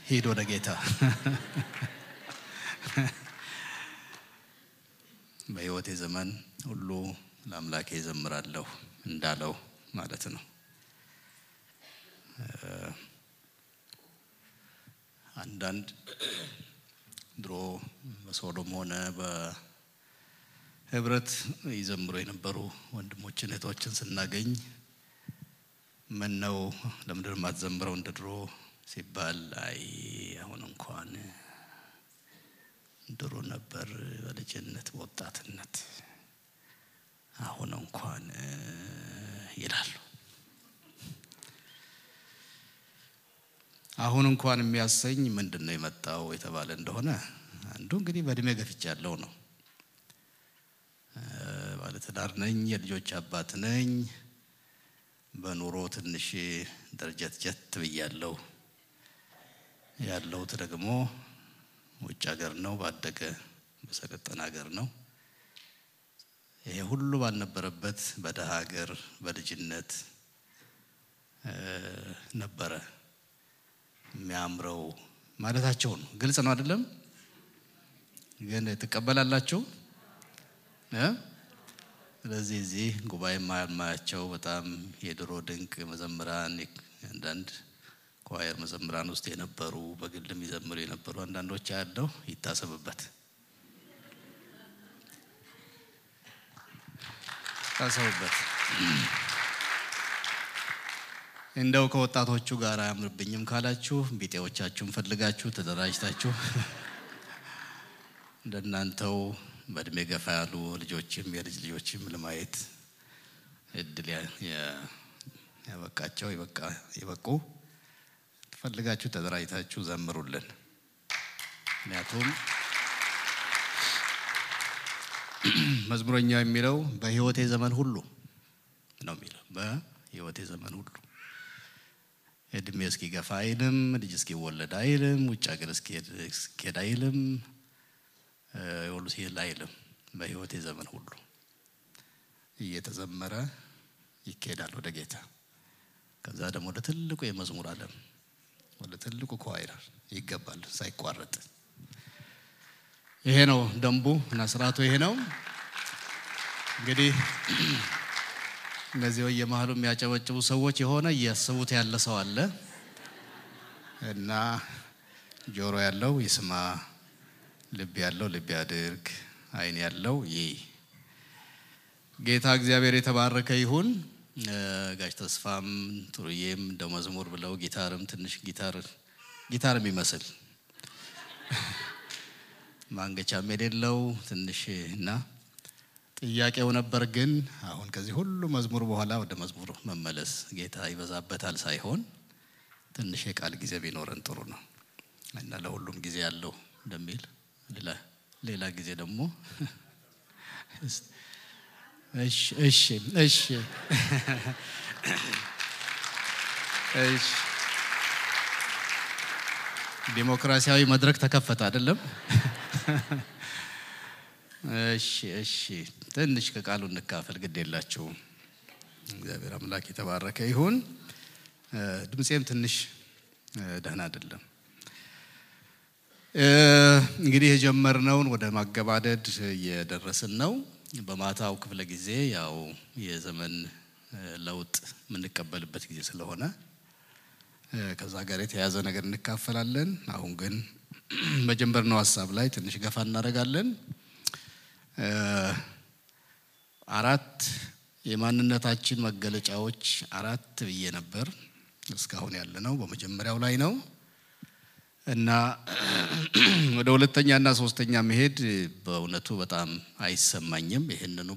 ሄዶ ለጌታ በሕይወቴ ዘመን ሁሉ ለአምላኬ ዘምራለሁ እንዳለው ማለት ነው። አንዳንድ ድሮ በሶዶም ሆነ በህብረት ይዘምሩ የነበሩ ወንድሞችን እህቶችን ስናገኝ ምን ነው ለምንድን ማትዘምረው እንደድሮ ሲባል አይ አሁን እንኳን ድሮ ነበር በልጅነት በወጣትነት አሁን እንኳን ይላሉ። አሁን እንኳን የሚያሰኝ ምንድነው የመጣው የተባለ እንደሆነ አንዱ እንግዲህ በእድሜ ገፍቻለሁ ነው። ባለትዳር ነኝ፣ የልጆች አባት ነኝ። በኑሮ ትንሽ ደረጃት ብያለሁ። ያለሁት ደግሞ ውጭ ሀገር ነው፣ ባደገ በሰለጠነ ሀገር ነው። ይሄ ሁሉ ባልነበረበት በደሃ ሀገር በልጅነት ነበረ የሚያምረው ማለታቸው ነው። ግልጽ ነው አይደለም? ግን ተቀበላላችሁ? ስለዚህ እዚህ ጉባኤ ማያቸው በጣም የድሮ ድንቅ መዘምራን አንዳንድ ኳየር መዘምራን ውስጥ የነበሩ በግልም ይዘምሩ የነበሩ አንዳንዶች ያለው ይታሰብበት ታሰቡበት። እንደው ከወጣቶቹ ጋር አያምርብኝም ካላችሁ ቢጤዎቻችሁን ፈልጋችሁ ተደራጅታችሁ እንደናንተው በእድሜ ገፋ ያሉ ልጆችም የልጅ ልጆችም ለማየት እድል ያበቃቸው ይበቁ ፈልጋችሁ ተደራጅታችሁ ዘምሩልን። ምክንያቱም መዝሙረኛው የሚለው በሕይወቴ ዘመን ሁሉ ነው የሚለው። በሕይወቴ ዘመን ሁሉ እድሜ እስኪገፋ አይልም፣ ልጅ እስኪወለድ አይልም፣ ውጭ ሀገር እስኪሄድ አይልም፣ ሁሉ ሲል አይልም። በሕይወቴ ዘመን ሁሉ እየተዘመረ ይኬዳል ወደ ጌታ። ከዛ ደግሞ ወደ ትልቁ የመዝሙር ዓለም ወደ ትልቁ ኳይር ይገባል ሳይቋረጥ። ይሄ ነው ደንቡ እና ስርዓቱ ይሄ ነው። እንግዲህ እነዚህ የመሃሉ የሚያጨበጭቡ ሰዎች የሆነ እያሰቡት ያለ ሰው አለ እና ጆሮ ያለው ይስማ፣ ልብ ያለው ልብ ያድርግ፣ አይን ያለው ይይ። ጌታ እግዚአብሔር የተባረከ ይሁን። ጋሽ ተስፋም ጥሩዬም እንደው መዝሙር ብለው ጊታርም ትንሽ ጊታር የሚመስል ማንገቻም የሌለው ትንሽ እና ጥያቄው ነበር። ግን አሁን ከዚህ ሁሉ መዝሙር በኋላ ወደ መዝሙር መመለስ ጌታ ይበዛበታል ሳይሆን ትንሽ የቃል ጊዜ ቢኖረን ጥሩ ነው እና ለሁሉም ጊዜ ያለው እንደሚል ሌላ ጊዜ ደግሞ እሺ ዲሞክራሲያዊ መድረክ ተከፈተ አይደለም? እሺ ትንሽ ከቃሉ እንካፈል ግድ የላችሁ። እግዚአብሔር አምላክ የተባረከ ይሁን። ድምጼም ትንሽ ደህና አይደለም። እንግዲህ የጀመርነውን ወደ ማገባደድ እየደረስን ነው። በማታው ክፍለ ጊዜ ያው የዘመን ለውጥ የምንቀበልበት ጊዜ ስለሆነ ከዛ ጋር የተያዘ ነገር እንካፈላለን። አሁን ግን በጀመርነው ሐሳብ ላይ ትንሽ ገፋ እናደርጋለን። 4 የማንነታችን መገለጫዎች 4 ብዬ ነበር። እስካሁን ያለነው በመጀመሪያው ላይ ነው እና ወደ ሁለተኛና ሶስተኛ መሄድ በእውነቱ በጣም አይሰማኝም። ይሄንኑ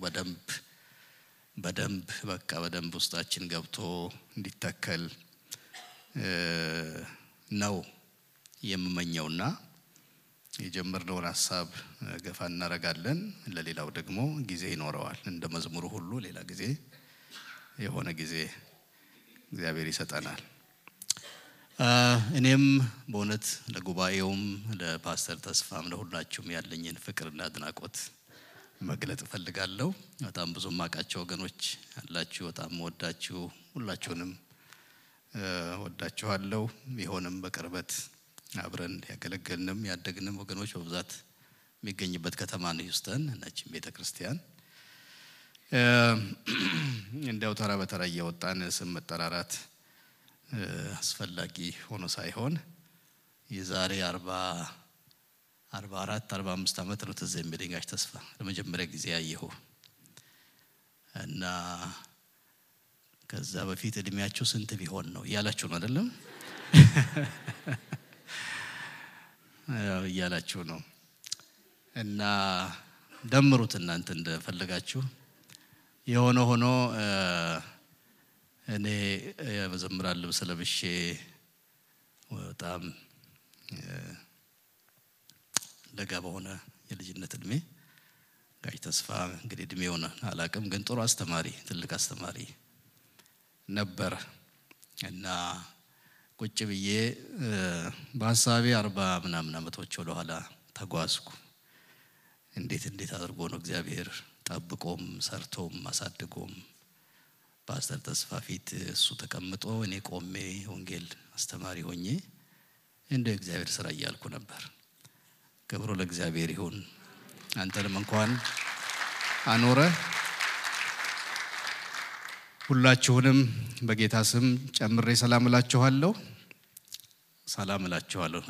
በደንብ ውስጣችን ገብቶ እንዲተከል ነው የምመኘውና የጀመርነውን ሐሳብ ገፋ እናደርጋለን። ለሌላው ደግሞ ጊዜ ይኖረዋል። እንደ መዝሙሩ ሁሉ ሌላ ጊዜ የሆነ ጊዜ እግዚአብሔር ይሰጠናል። እኔም በእውነት ለጉባኤውም ለፓስተር ተስፋም ለሁላችሁም ያለኝን ፍቅርና አድናቆት መግለጥ ፈልጋለሁ። በጣም ብዙ ማቃቸው ወገኖች አላችሁ። በጣም ወዳችሁ ሁላችሁንም ወዳችኋለሁ። ቢሆንም በቅርበት አብረን ያገለገልንም ያደግንም ወገኖች በብዛት የሚገኝበት ከተማ ነው ሂውስተን ነች ቤተክርስቲያን እንደው ተራ በተራ እየወጣን ስም መጠራራት አስፈላጊ ሆኖ ሳይሆን የዛሬ 44 45 ዓመት ነው ትዝ የሚለኝ ጋሽ ተስፋ ለመጀመሪያ ጊዜ ያየሁ እና ከዛ በፊት እድሜያችሁ ስንት ቢሆን ነው ያላችሁ ነው አይደለም ያላችሁ ነው እና ደምሩት እናንተ እንደፈለጋችሁ የሆነ ሆኖ እኔ በዘምራል ልብስ ለብሼ በጣም ለጋ በሆነ የልጅነት እድሜ ጋሽ ተስፋ እንግዲህ እድሜውን አላቅም ግን ጥሩ አስተማሪ ትልቅ አስተማሪ ነበር እና ቁጭ ብዬ በሐሳቤ 40 ምናምን አመቶች ወደ ኋላ ተጓዝኩ እንዴት አድርጎ ነው እግዚአብሔር ጠብቆም ሰርቶም ማሳደጎም ፓስተር ተስፋ ፊት እሱ ተቀምጦ እኔ ቆሜ ወንጌል አስተማሪ ሆኜ እንደ እግዚአብሔር ስራ ያልኩ ነበር ክብሩ ለእግዚአብሔር ይሁን አንተንም እንኳን አኖረ ሁላችሁንም በጌታ ስም ጨምሬ ሰላም እላችኋለሁ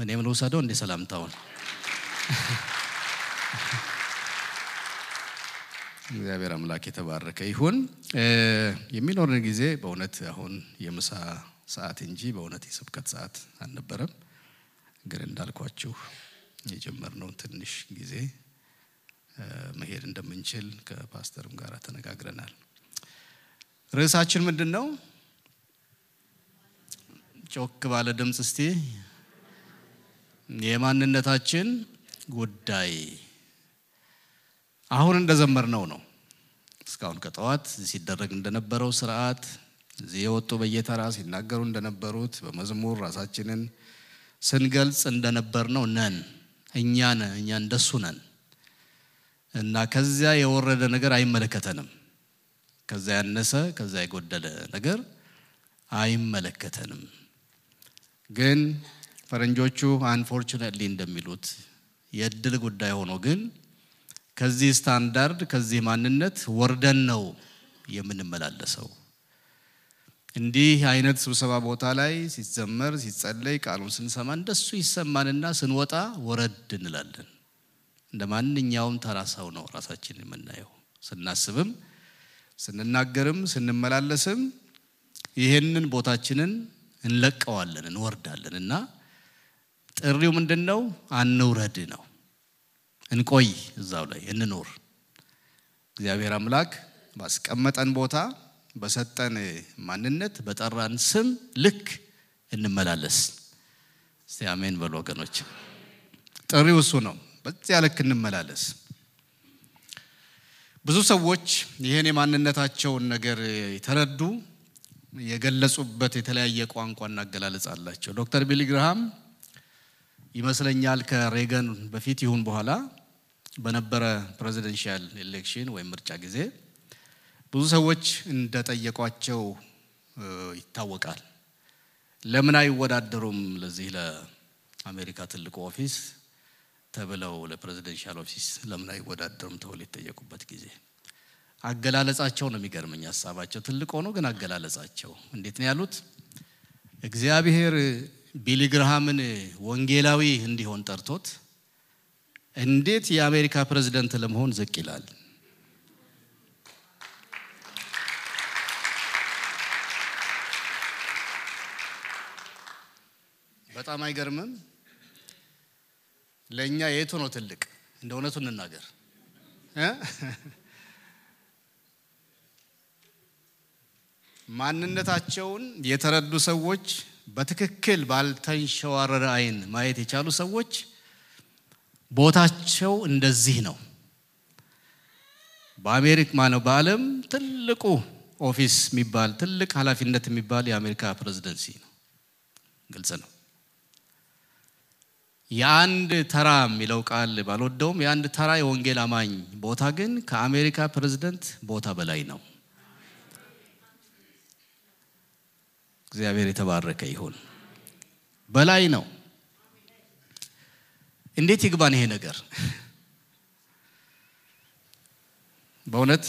እኔም ልውሰደው እንደ ሰላምታውን እግዚአብሔር አምላክ የተባረከ ይሁን የሚኖርን ጊዜ በእውነት አሁን የምሳ ሰዓት እንጂ በእውነት የስብከት ሰዓት አልነበረም ግን እንዳልኳችሁ የጀመርነው ትንሽ ጊዜ መሄድ እንደምንችል ከፓስተርም ጋር ተነጋግረናል ርዕሳችን ምንድነው ጮክ ባለ ድምጽ እስቲ የማንነታችን ጉዳይ አሁን እንደዘመርነው ነው እስካሁን ከጠዋት ሲደረግ እንደነበረው ሥርዓት እዚህ የወጡ በየተራ ሲናገሩ እንደነበሩት በመዝሙር ራሳችንን ስንገልጽ እንደነበርነው ነን እኛ እንደሱ ነን እና ከዛ የወረደ ነገር አይመለከተንም ከዛ ያነሰ ከዛ የጎደለ ነገር አይመለከተንም ግን ፈረንጆቹ አንፎርቹኔትሊ እንደሚሉት የድል ጉዳይ ሆኖ ግን ከዚህ ስታንዳርድ ከዚህ ማንነት ወርደን ነው የምንመላለሰው እንዲህ አይነት ስብሰባ ቦታ ላይ ሲዘመር ሲጸለይ ቃሉን ስንሰማ እንደሱ ይሰማንና ስንወጣ ወረድ እንላለን እንደማንኛውም ተራሳው ነው ራሳችንን የምናየው ስናስብም ስንናገርም ስንመላለስም ይሄንን ቦታችንን እንለቀዋለን እንወርዳለንና ጥሪው ምንድነው አንውረድ ነው እንቆይ እዛው ላይ እንኖር እግዚአብሔር አምላክ ባስቀመጠን ቦታ በሰጠን ማንነት በጠራን ስም ልክ እንመላለስ እስቲ አሜን በሉ ወገኖች ጥሪው እሱ ነው በዚያ ልክ እንመላለስ ብዙ ሰዎች ይሄን የማንነታቸውን ነገር የተረዱ የገለጹበት የተለያየ ቋንቋና አገላለጽ አላቸው ዶክተር ቢሊ ግርሃም ይመስለኛል ከሬገን በፊት ይሁን በኋላ በነበረ ፕሬዚደንሻል ኤሌክሽን ወይ ምርጫ ጊዜ ብዙ ሰዎች እንደጠየቋቸው ይታወቃል ለምን አይወዳደሩም ለዚህ ለአሜሪካ ትልቁ ኦፊስ ተብለው ለፕሬዚደንሻል ኦፊስ ለምን አይወዳደሩም ተብለው የተጠየቁበት ጊዜ አገላለጻቸው ነው የሚገርመኝ ሐሳባቸው ትልቅ ሆኖ ግን አገላለጻቸው እንዴት ነው ያሉት እግዚአብሔር ቢሊ ግርሃምን ወንጌላዊ እንዲሆን ጠርቶት እንዴት የአሜሪካ ፕሬዝዳንት ለመሆን ዝቅ ይላል በጣም አይገርምም ለኛ የቱ ነው ትልቅ እንደውነቱ እንናገር ማንነታቸውን የተረዱ ሰዎች በትክክል ባልተንሸዋረረ አይን ማየት የቻሉ ሰዎች ቦታቸው እንደዚህ ነው በአሜሪካ ማነው በዓለም ትልቁ ኦፊስ የሚባል ትልቅ ኃላፊነት የሚባል የአሜሪካ ፕሬዝዳንሲ ነው ግልጽ ነው የአንድ ተራ የሚለው ቃል ባልወደውም የአንድ ተራ የወንጌል አማኝ ቦታ ግን ከአሜሪካ ፕሬዝዳንት ቦታ በላይ ነው እግዚአብሔር የተባረከ ይሁን በላይ ነው እንዴት ይግባን ይሄ ነገር? በእውነት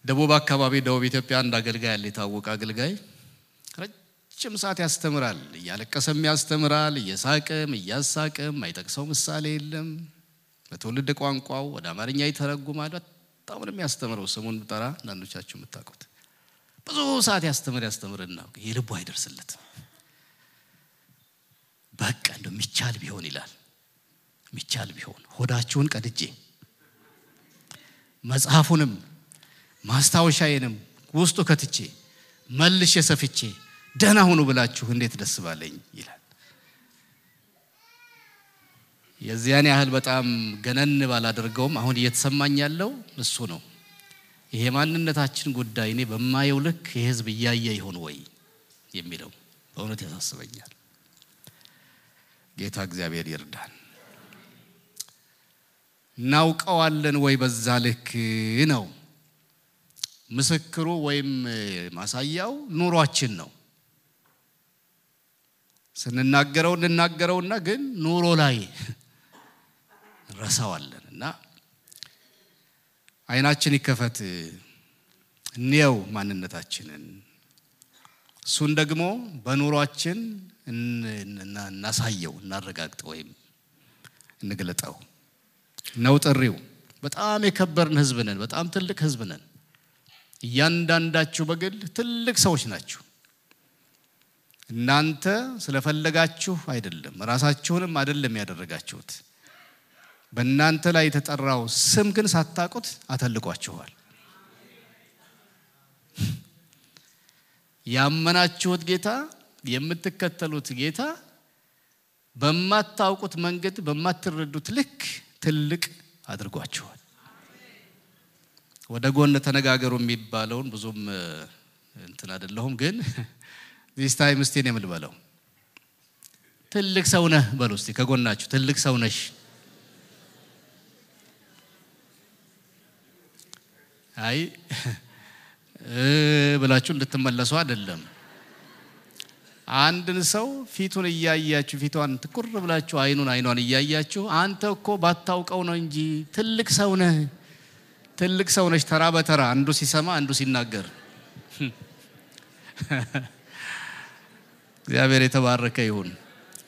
ደቡብ አካባቢ ደቡብ ኢትዮጵያ አንድ አገልጋይ አለ፣ የታወቀ አገልጋይ ረጅም ሰዓት ያስተምራል። እያለቀሰም ያስተምራል፣ እየሳቀም እያሳቀም፣ አይጠቅሰው ምሳሌ የለም። በትውልድ ቋንቋው ወደ አማርኛ ይተረጉማል። በጣም ነው የሚያስተምረው። ስሙን ብጠራ አንዳንዶቻችሁ የምታውቁት ብዙ ሰዓት ያስተምርና የልቡ አይደርስለትም። በቃ እንደው ሚቻል ቢሆን ይላል። ሚቻል ቢሆን ሆዳችሁን ቀድጄ መጽሐፉንም ማስታወሻዬንም ውስጡ ከትቼ መልሼ ሰፍቼ ደህና ሁኑ ብላችሁ እንዴት ደስ ባለኝ ይላል። የዚያን ያህል በጣም ገነን ባላደርገውም አሁን እየተሰማኝ ያለው እሱ ነው። ይሄ ማንነታችን ጉዳይ እኔ በማየው ልክ የህዝብ እያየ ይሆን ወይ የሚለው በእውነት ያሳስበኛል። ጌታ እግዚአብሔር ይርዳን። እናውቀዋለን ወይ በዛ ልክ ነው? ምስክሩ ወይም ማሳያው ኑሯችን ነው። ስንናገረውና ግን ኑሮ ላይ ረሳዋለንና አይናችን ይከፈት እንየው ማንነታችንን። እሱን ደግሞ በኑሯችን እናሳየው፣ እናረጋግጠው ወይም እንግለጠው ነው ጥሪው። በጣም የከበርን ህዝብ ነን። በጣም ትልቅ ህዝብ ነን። እያንዳንዳችሁ በግል ትልቅ ሰዎች ናችሁ። እናንተ ስለፈለጋችሁ አይደለም፣ ራሳችሁንም አይደለም ያደረጋችሁት። በእናንተ ላይ የተጠራው ስም ግን ሳታውቁት አተልቋችኋል። ያመናችሁት ጌታ፣ የምትከተሉት ጌታ በማታውቁት መንገድ በማትረዱት ልክ ትልቅ አድርጓችኋል። ወደ ጎን ተነጋገሩ የሚባለውን ብዙም እንትን አይደለሁም፣ ግን this time እስቲ ነው የምልበለው። ትልቅ ሰው ነህ በሉ እስቲ ከጎናችሁ፣ ትልቅ ሰው ነሽ። አይ ብላችሁ እንድትመለሱ አይደለም። አንድን ሰው ፊቱን እያያችሁ፣ ፊቷን ትኩር ብላችሁ አይኗን እያያችሁ አንተ እኮ ባታውቀው ነው እንጂ ትልቅ ሰው ነህ፣ ትልቅ ሰው ነሽ። ተራ በተራ አንዱ ሲሰማ አንዱ ሲናገር እግዚአብሔር የተባረከ ይሁን።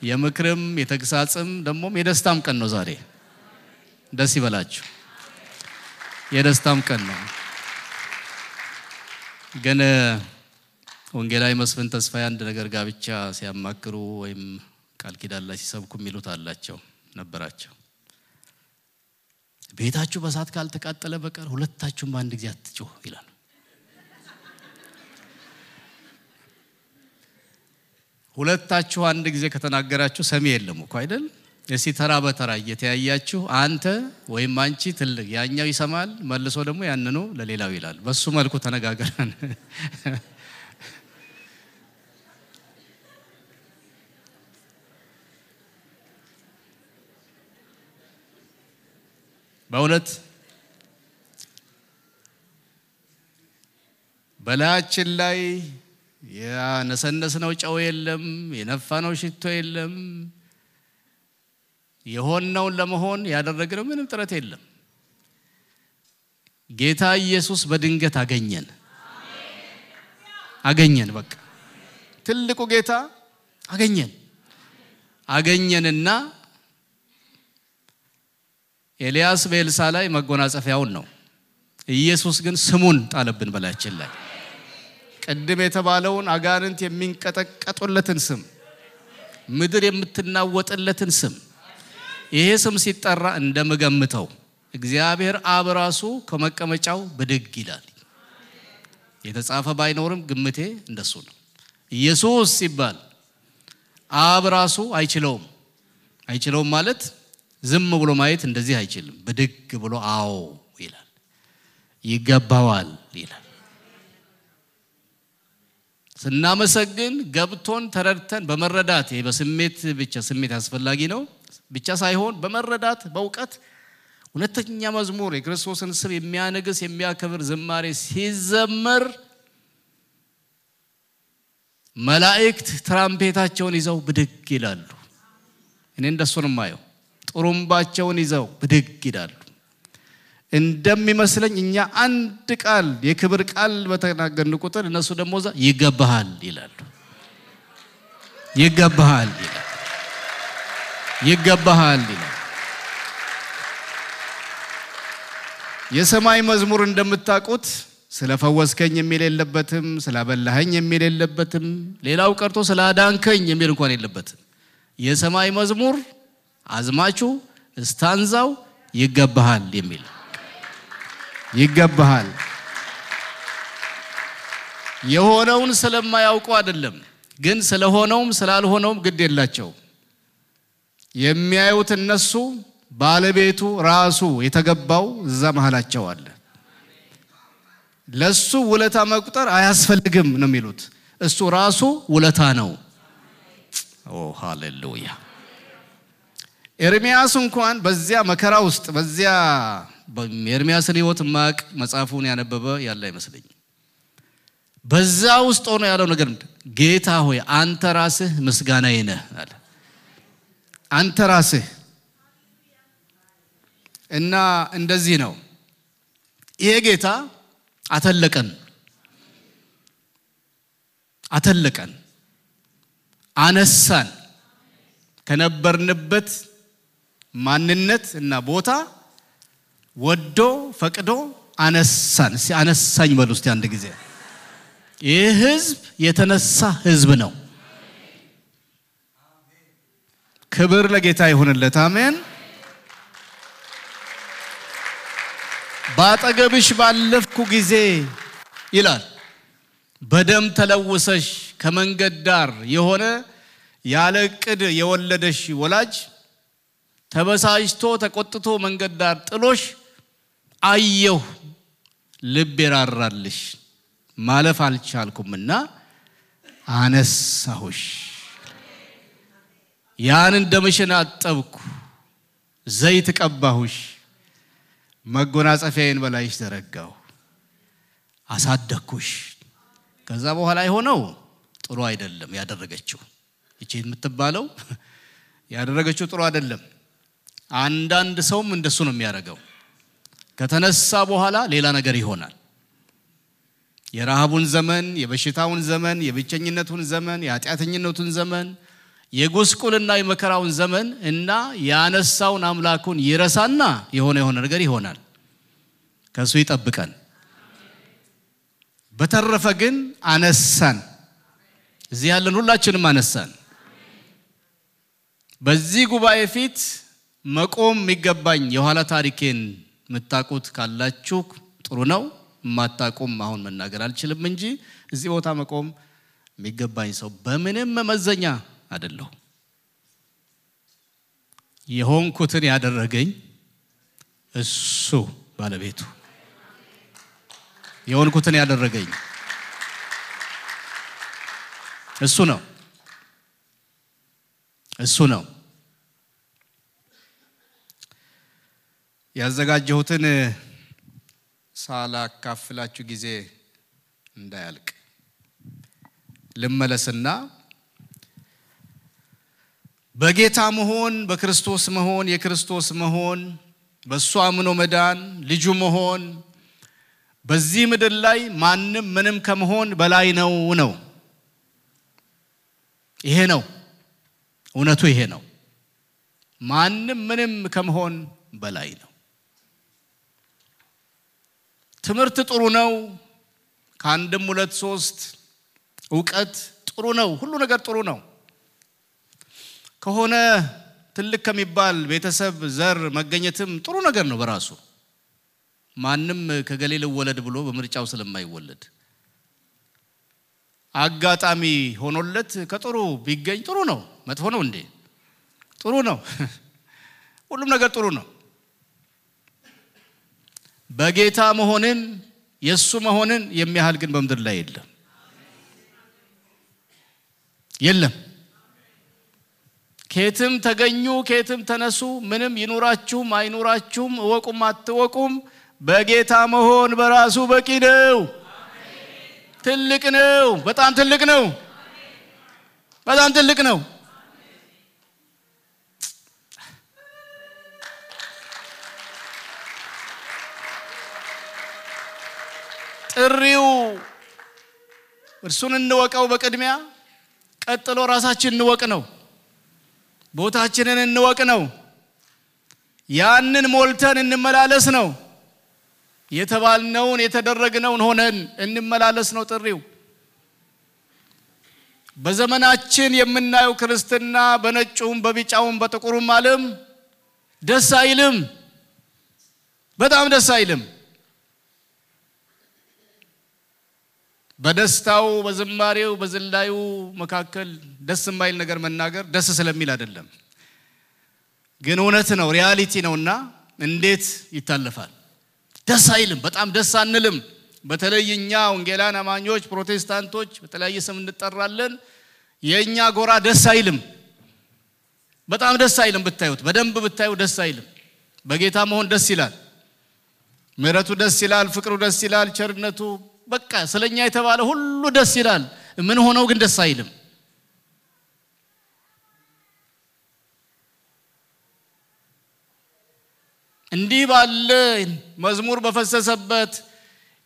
የምክርም የተግሳጽም ደሞም የደስታም ቀን ነው ዛሬ። ደስ ይበላችሁ። የደስታም ቀን ነው። ግን ወንጌላዊ መስፍን ተስፋዬ አንድ ነገር ጋብቻ ሲያማክሩ ወይም ቃል ኪዳን ላይ ሲሰብኩ የሚሉት አላቸው ነበራቸው። ቤታችሁ በሳት ካልተቃጠለ በቀር ሁለታችሁም በአንድ ጊዜ አትጮሁ ይላል። ሁለታችሁ አንድ ጊዜ ከተናገራችሁ ሰሚ የለም እኮ አይደል? እስቲ ተራ በተራ እየተያያችሁ አንተ ወይም አንቺ ትልቅ፣ ያኛው ይሰማል፣ መልሶ ደግሞ ያንኑ ለሌላው ይላል። በሱ መልኩ ተነጋገረን። በእውነት በላያችን ላይ ያነሰነስነው ጨው የለም፣ የነፋነው ሽቶ የለም። የሆነውን ለመሆን ያደረግነው ምንም ጥረት የለም። ጌታ ኢየሱስ በድንገት አገኘን። በቃ ትልቁ ጌታ አገኘንና ኤልያስ በኤልሳ ላይ መጎናጸፊያውን ነው፣ ኢየሱስ ግን ስሙን ጣለብን በላያችን ላይ። ቀድም የተባለውን አጋንንት የሚንቀጠቀጡለትን ስም፣ ምድር የምትናወጥለትን ስም፣ ይሄ ስም ሲጠራ እንደምገምተው እግዚአብሔር አብ ራሱ ከመቀመጫው ብድግ ይላል። የተጻፈ ባይኖርም ግምቴ እንደሱ ነው። ኢየሱስ ሲባል አብ ራሱ አይችለውም ማለት ዝም ብሎ ማየት እንደዚህ አይችልም። ብድግ ብሎ አዎ ይላል፣ ይገባዋል ይላል። ስናመሰግን ገብቶን ተረድተን በመረዳት በስሜት ብቻ ስሜት አስፈላጊ ነው ብቻ ሳይሆን በመረዳት በእውቀት ሁለተኛ መዝሙር የክርስቶስን ስም የሚያነግስ የሚያከብር ዝማሬ ሲዘመር መላእክት ትራምፔታቸውን ይዘው ብድግ ይላሉ። እኔ እንደሱ ነው ማየው ጥሩምባቸውን ይዘው ብድግ ይላሉ እንደሚመስለኝ እኛ አንድ ቃል የክብር ቃል በተናገርን ቁጥር እነሱ ደግሞ ይገባሃል ይላሉ ይገባሃል ይላሉ ይገባሃል ይላሉ የሰማይ መዝሙር እንደምታውቁት ስለፈወስከኝ የሚል የለበትም ስላበላኸኝ የሚል የለበትም ሌላው ቀርቶ ስላዳንከኝ የሚል እንኳን የለበትም የሰማይ መዝሙር አዝማቹ ስታንዛው ይገባሃል የሚል ይገባሃል የሆነውን ስለማያውቁ አይደለም ግን ስለሆነውም ስላልሆነውም ግድ የላቸው የሚያዩት እነሱ ባለቤቱ ራሱ የተገባው እዛ መሐላቸው አለ ለሱ ውለታ መቁጠር አያስፈልግም ነው የሚሉት እሱ ራሱ ውለታ ነው ኦ ሃሌሉያ ኤርሚያስ እንኳን በዚያ መከራ ውስጥ በዚያ ኤርሚያስን ሕይወት ማቅ መጽሐፉን ያነበበ ያለ አይመስልኝ በዛ ውስጥ ሆኖ ያለው ነገር ጌታ ሆይ አንተ ራስህ ምስጋናዬ ነህ አለ አንተ ራስህ እና እንደዚህ ነው ይሄ ጌታ አተለቀን አነሳን ከነበርንበት ማንነት እና ቦታ ወዶ ፈቅዶ አነሳን አነሳኝ በሉ እስቲ አንድ ጊዜ ይህ ህዝብ የተነሳ ህዝብ ነው ክብር ለጌታ ይሁንለት አሜን ባጠገብሽ ባለፍኩ ጊዜ ይላል በደም ተለውሰሽ ከመንገድ ዳር የሆነ ያለ ቅድ የወለደሽ ወላጅ ተበሳጭቶ ተቆጥቶ መንገድ ዳር ጥሎሽ አየሁ ልብ ይራራልሽ ማለፍ አልቻልኩምና አነሳሁሽ ያን እንደምሽን አጠብኩ ዘይት ቀባሁሽ መጎናጸፊያዬን በላይሽ ዘረጋው አሳደኩሽ ከዛ በኋላ የሆነው ጥሩ አይደለም ያደረገችው እቺ የምትባለው ያደረገችው ጥሩ አይደለም አንዳንድ ሰውም እንደሱ ነው የሚያደርገው ከተነሳ በኋላ ሌላ ነገር ይሆናል የራሃቡን ዘመን የበሽታውን ዘመን የብቸኝነቱን ዘመን የኃጢአተኝነቱን ዘመን የጉስቁልና የመከራውን ዘመን እና ያነሳውን አምላኩን ይረሳና የሆነ ነገር ይሆናል ከሱ ይጠብቀን በተረፈ ግን አነሳን እዚህ ያለን ሁላችንም አነሳን በዚህ ጉባኤ ፊት መቆም የሚገባኝ የኋላ ታሪኬን መታቆት ካላችሁ ጥሩ ነው ማታቆም አሁን መናገር አልችልም እንጂ እዚህ ቦታ መቆም የሚገባኝ ሰው በምንም መመዘኛ አይደለም የሆንኩትን ያደረገኝ እሱ ባለቤቱ የሆንኩትን ያደረገኝ እሱ ነው ያዘጋጀሁትን ሳላካፍላችሁ ጊዜ እንዳያልቅ ልመለስና በጌታ መሆን በክርስቶስ መሆን የክርስቶስ መሆን በሱ አምኖ መዳን ልጁ መሆን በዚህ ምድር ላይ ማንንም ምንም ከመሆን በላይ ነው ይሄ ነው እውነቱ ይሄ ነው ማንንም ምንም ከመሆን በላይ ነው ትምህርት ጥሩ ነው ካንድም ሁለት ሶስት ዕውቀት ጥሩ ነው ሁሉ ነገር ጥሩ ነው ከሆነ ትልቅ ከሚባል ቤተሰብ ዘር መገኘትም ጥሩ ነገር ነው በራሱ ማንንም ከገሌለ ወለድ ብሎ በምርጫው ስለማይወለድ አጋጣሚ ሆኖለት ከጥሩ ቢገኝ ጥሩ ነው መጥፎ ነው እንዴ ጥሩ ነው ሁሉም ነገር ጥሩ ነው በጌታ መሆንን የሱ መሆንን የሚያህል ግን በመድር ላይ የለም ከየትም ተገኙ ከየትም ተነሱ ምንም ይኑራችሁም አይኑራችሁም ወቁም አትወቁም በጌታ መሆን በራሱ በቂ ነው ትልቅ ነው በጣም ትልቅ ነው ጥሪው እርሱን እንወቀው በቅድሚያ ቀጥሎ ራሳችንን እንወቅ ነው ቦታችንን እንወቅ ነው ያንን ሞልተን እንመላለስ ነው የተባልነውን የተደረግነውን ሆነን እንመላለስ ነው ጥሪው በዘመናችን የምናየው ክርስትና በነጩም በቢጫውም በጥቁሩም ዓለም ደስ አይልም በጣም ደስ አይልም በደስታው በዝማሬው በዝላዩ መካከል ደስ የማይል ነገር መናገር ደስ ስለሚል አይደለም ግን እውነት ነው ሪያሊቲ ነውና እንዴት ይታለፋል ደስ አይልም በጣም ደስ አንልም በተለይኛ ወንጌላን አማኞች ፕሮቴስታንቶች በተለያየ ስም እንጠራለን የኛ ጎራ ደስ አይልም በጣም ደስ አይልም ብታዩት በደንብ ብታዩ ደስ አይልም በጌታ መሆን ደስ ይላል ምሕረቱ ደስ ይላል ፍቅሩ ደስ ይላል ቸርነቱ በቃ ስለኛ የተባለ ሁሉ ደስ ይላል ምን ሆነው ግን ደስ አይልም እንዲህ ባለ መዝሙር በፈሰሰበት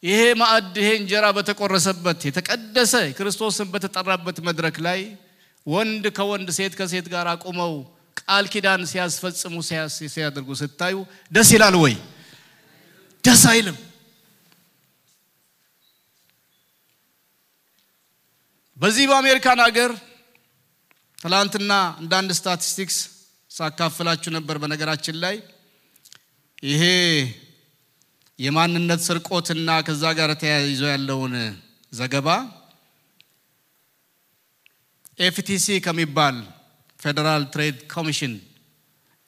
ይሄ ማዕድ ይሄ እንጀራ በተቆረሰበት የተቀደሰ ክርስቶስን በተጠራበት መድረክ ላይ ወንድ ከወንድ ሴት ከሴት ጋር አቆመው ቃል ኪዳን ሲያስፈጽሙ ሲያደርጉ ስታዩ ደስ ይላል ወይ ደስ አይልም በዚህ በአሜሪካን ሀገር ትላንትና አንድ ስታቲስቲክስ ሳካፍላችሁ ነበር በነገራችን ላይ ይሄ የማንነት ስርቆትና ከዛ ጋር ተያይዞ ያለውን ዘገባ FTC ከሚባል ፌደራል ትሬድ ኮሚሽን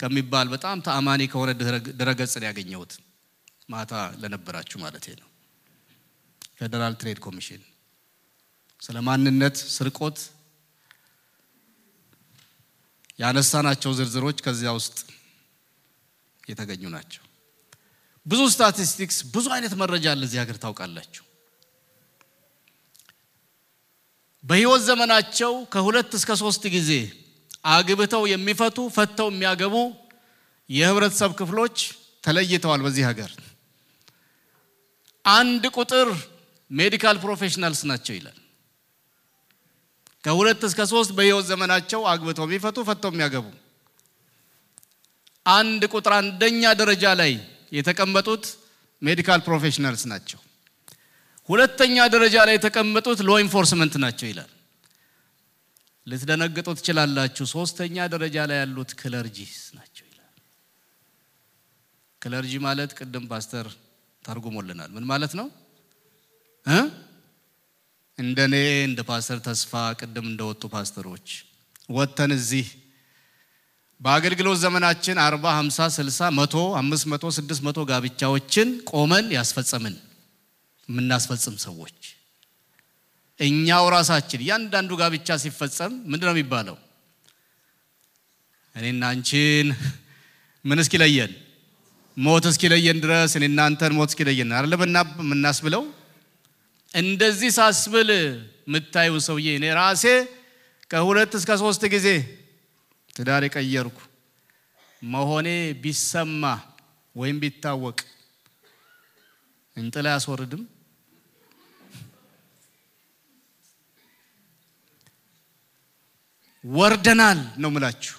ከሚባል በጣም ተአማኒ ከሆነ ድረገጽ ያገኘሁት ማታ ለነበራችሁ ማለት ነው ፌደራል ትሬድ ኮሚሽን ስለማንነት ስርቆት ያነሳናቸው ዝርዝሮች ከዚያ ውስጥ የተገኙ ናቸው ብዙ ስታቲስቲክስ ብዙ አይነት መረጃ አለ እዚህ ሀገር ታውቃላችሁ በህይወት ዘመናቸው ከ2 እስከ 3 ጊዜ አግብተው የሚፈቱ ፈተው የሚያገቡ የህብረተሰብ ክፍሎች ተለይተዋል በዚህ ሀገር አንድ ቁጥር ሜዲካል ፕሮፌሽናልስ ናቸው ይላል ከ2 እስከ 3 በህይወት ዘመናቸው አግብተው የሚፈቱ ፈተው የሚያገቡ አንድ ቁጥር አንደኛ ደረጃ ላይ የተቀመጡት ሜዲካል ፕሮፌሽናልስ ናቸው ሁለተኛ ደረጃ ላይ የተቀመጡት ሎ ኢንፎርስመንት ናቸው ይላል ልትደነግጡ ትችላላችሁ ሶስተኛ ደረጃ ላይ ያሉት ክለርጂስ ናቸው ይላል ክለርጂ ማለት ቅድም ፓስተር ተርጉሞልናል ምን ማለት ነው እንደኔ እንደ ፓስተር ተስፋ ቅድም እንደወጡ ፓስተሮች ወተን እዚህ በአገልግሎት ዘመናችን 40 50 60 100 500 600 ጋብቻዎችን ቆመን ያስፈጸምን ምናስፈጽም ሰዎች እኛው ራሳችን ያንዳንዱ ጋብቻ ሲፈጸም ምንድነው የሚባለው እኔና አንቺን ምን እስኪለየን ሞት እስኪለየን ድረስ እኔና አንተን ሞት እስኪለየን አይደለም እናስብለው እንደዚህ ሳስብል ምታዩ ሰውዬ እኔ ራሴ ከ2 እስከ 3 ጊዜ ትዳር ቀየርኩ መሆኔ ቢሰማ ወይም ቢታወቅ እንጥላ ያስወርድም ወርደናል ነው ምላችሁ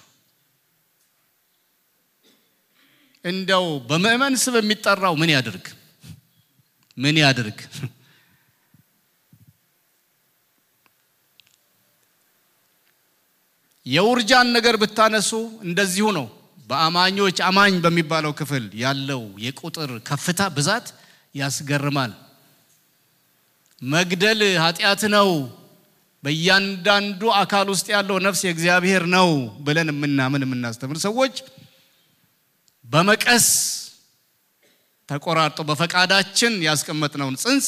እንደው በመእመን ስብ የሚጠራው ምን ያድርግ የውርጃን ነገር ብታነሱ እንደዚሁ ነው በአማኞች አማኝ በሚባለው ክፍል ያለው የቁጥር ከፍታ ብዛት ያስገርማል መግደል ኃጢያት ነው በእያንዳንዱ አካል ውስጥ ያለው ነፍስ የእግዚአብሔር ነው ብለን የምናስተምር ሰዎች በመቀስ ተቆራርጦ በፈቃዳችን ያስቀመጥነውን ጽንስ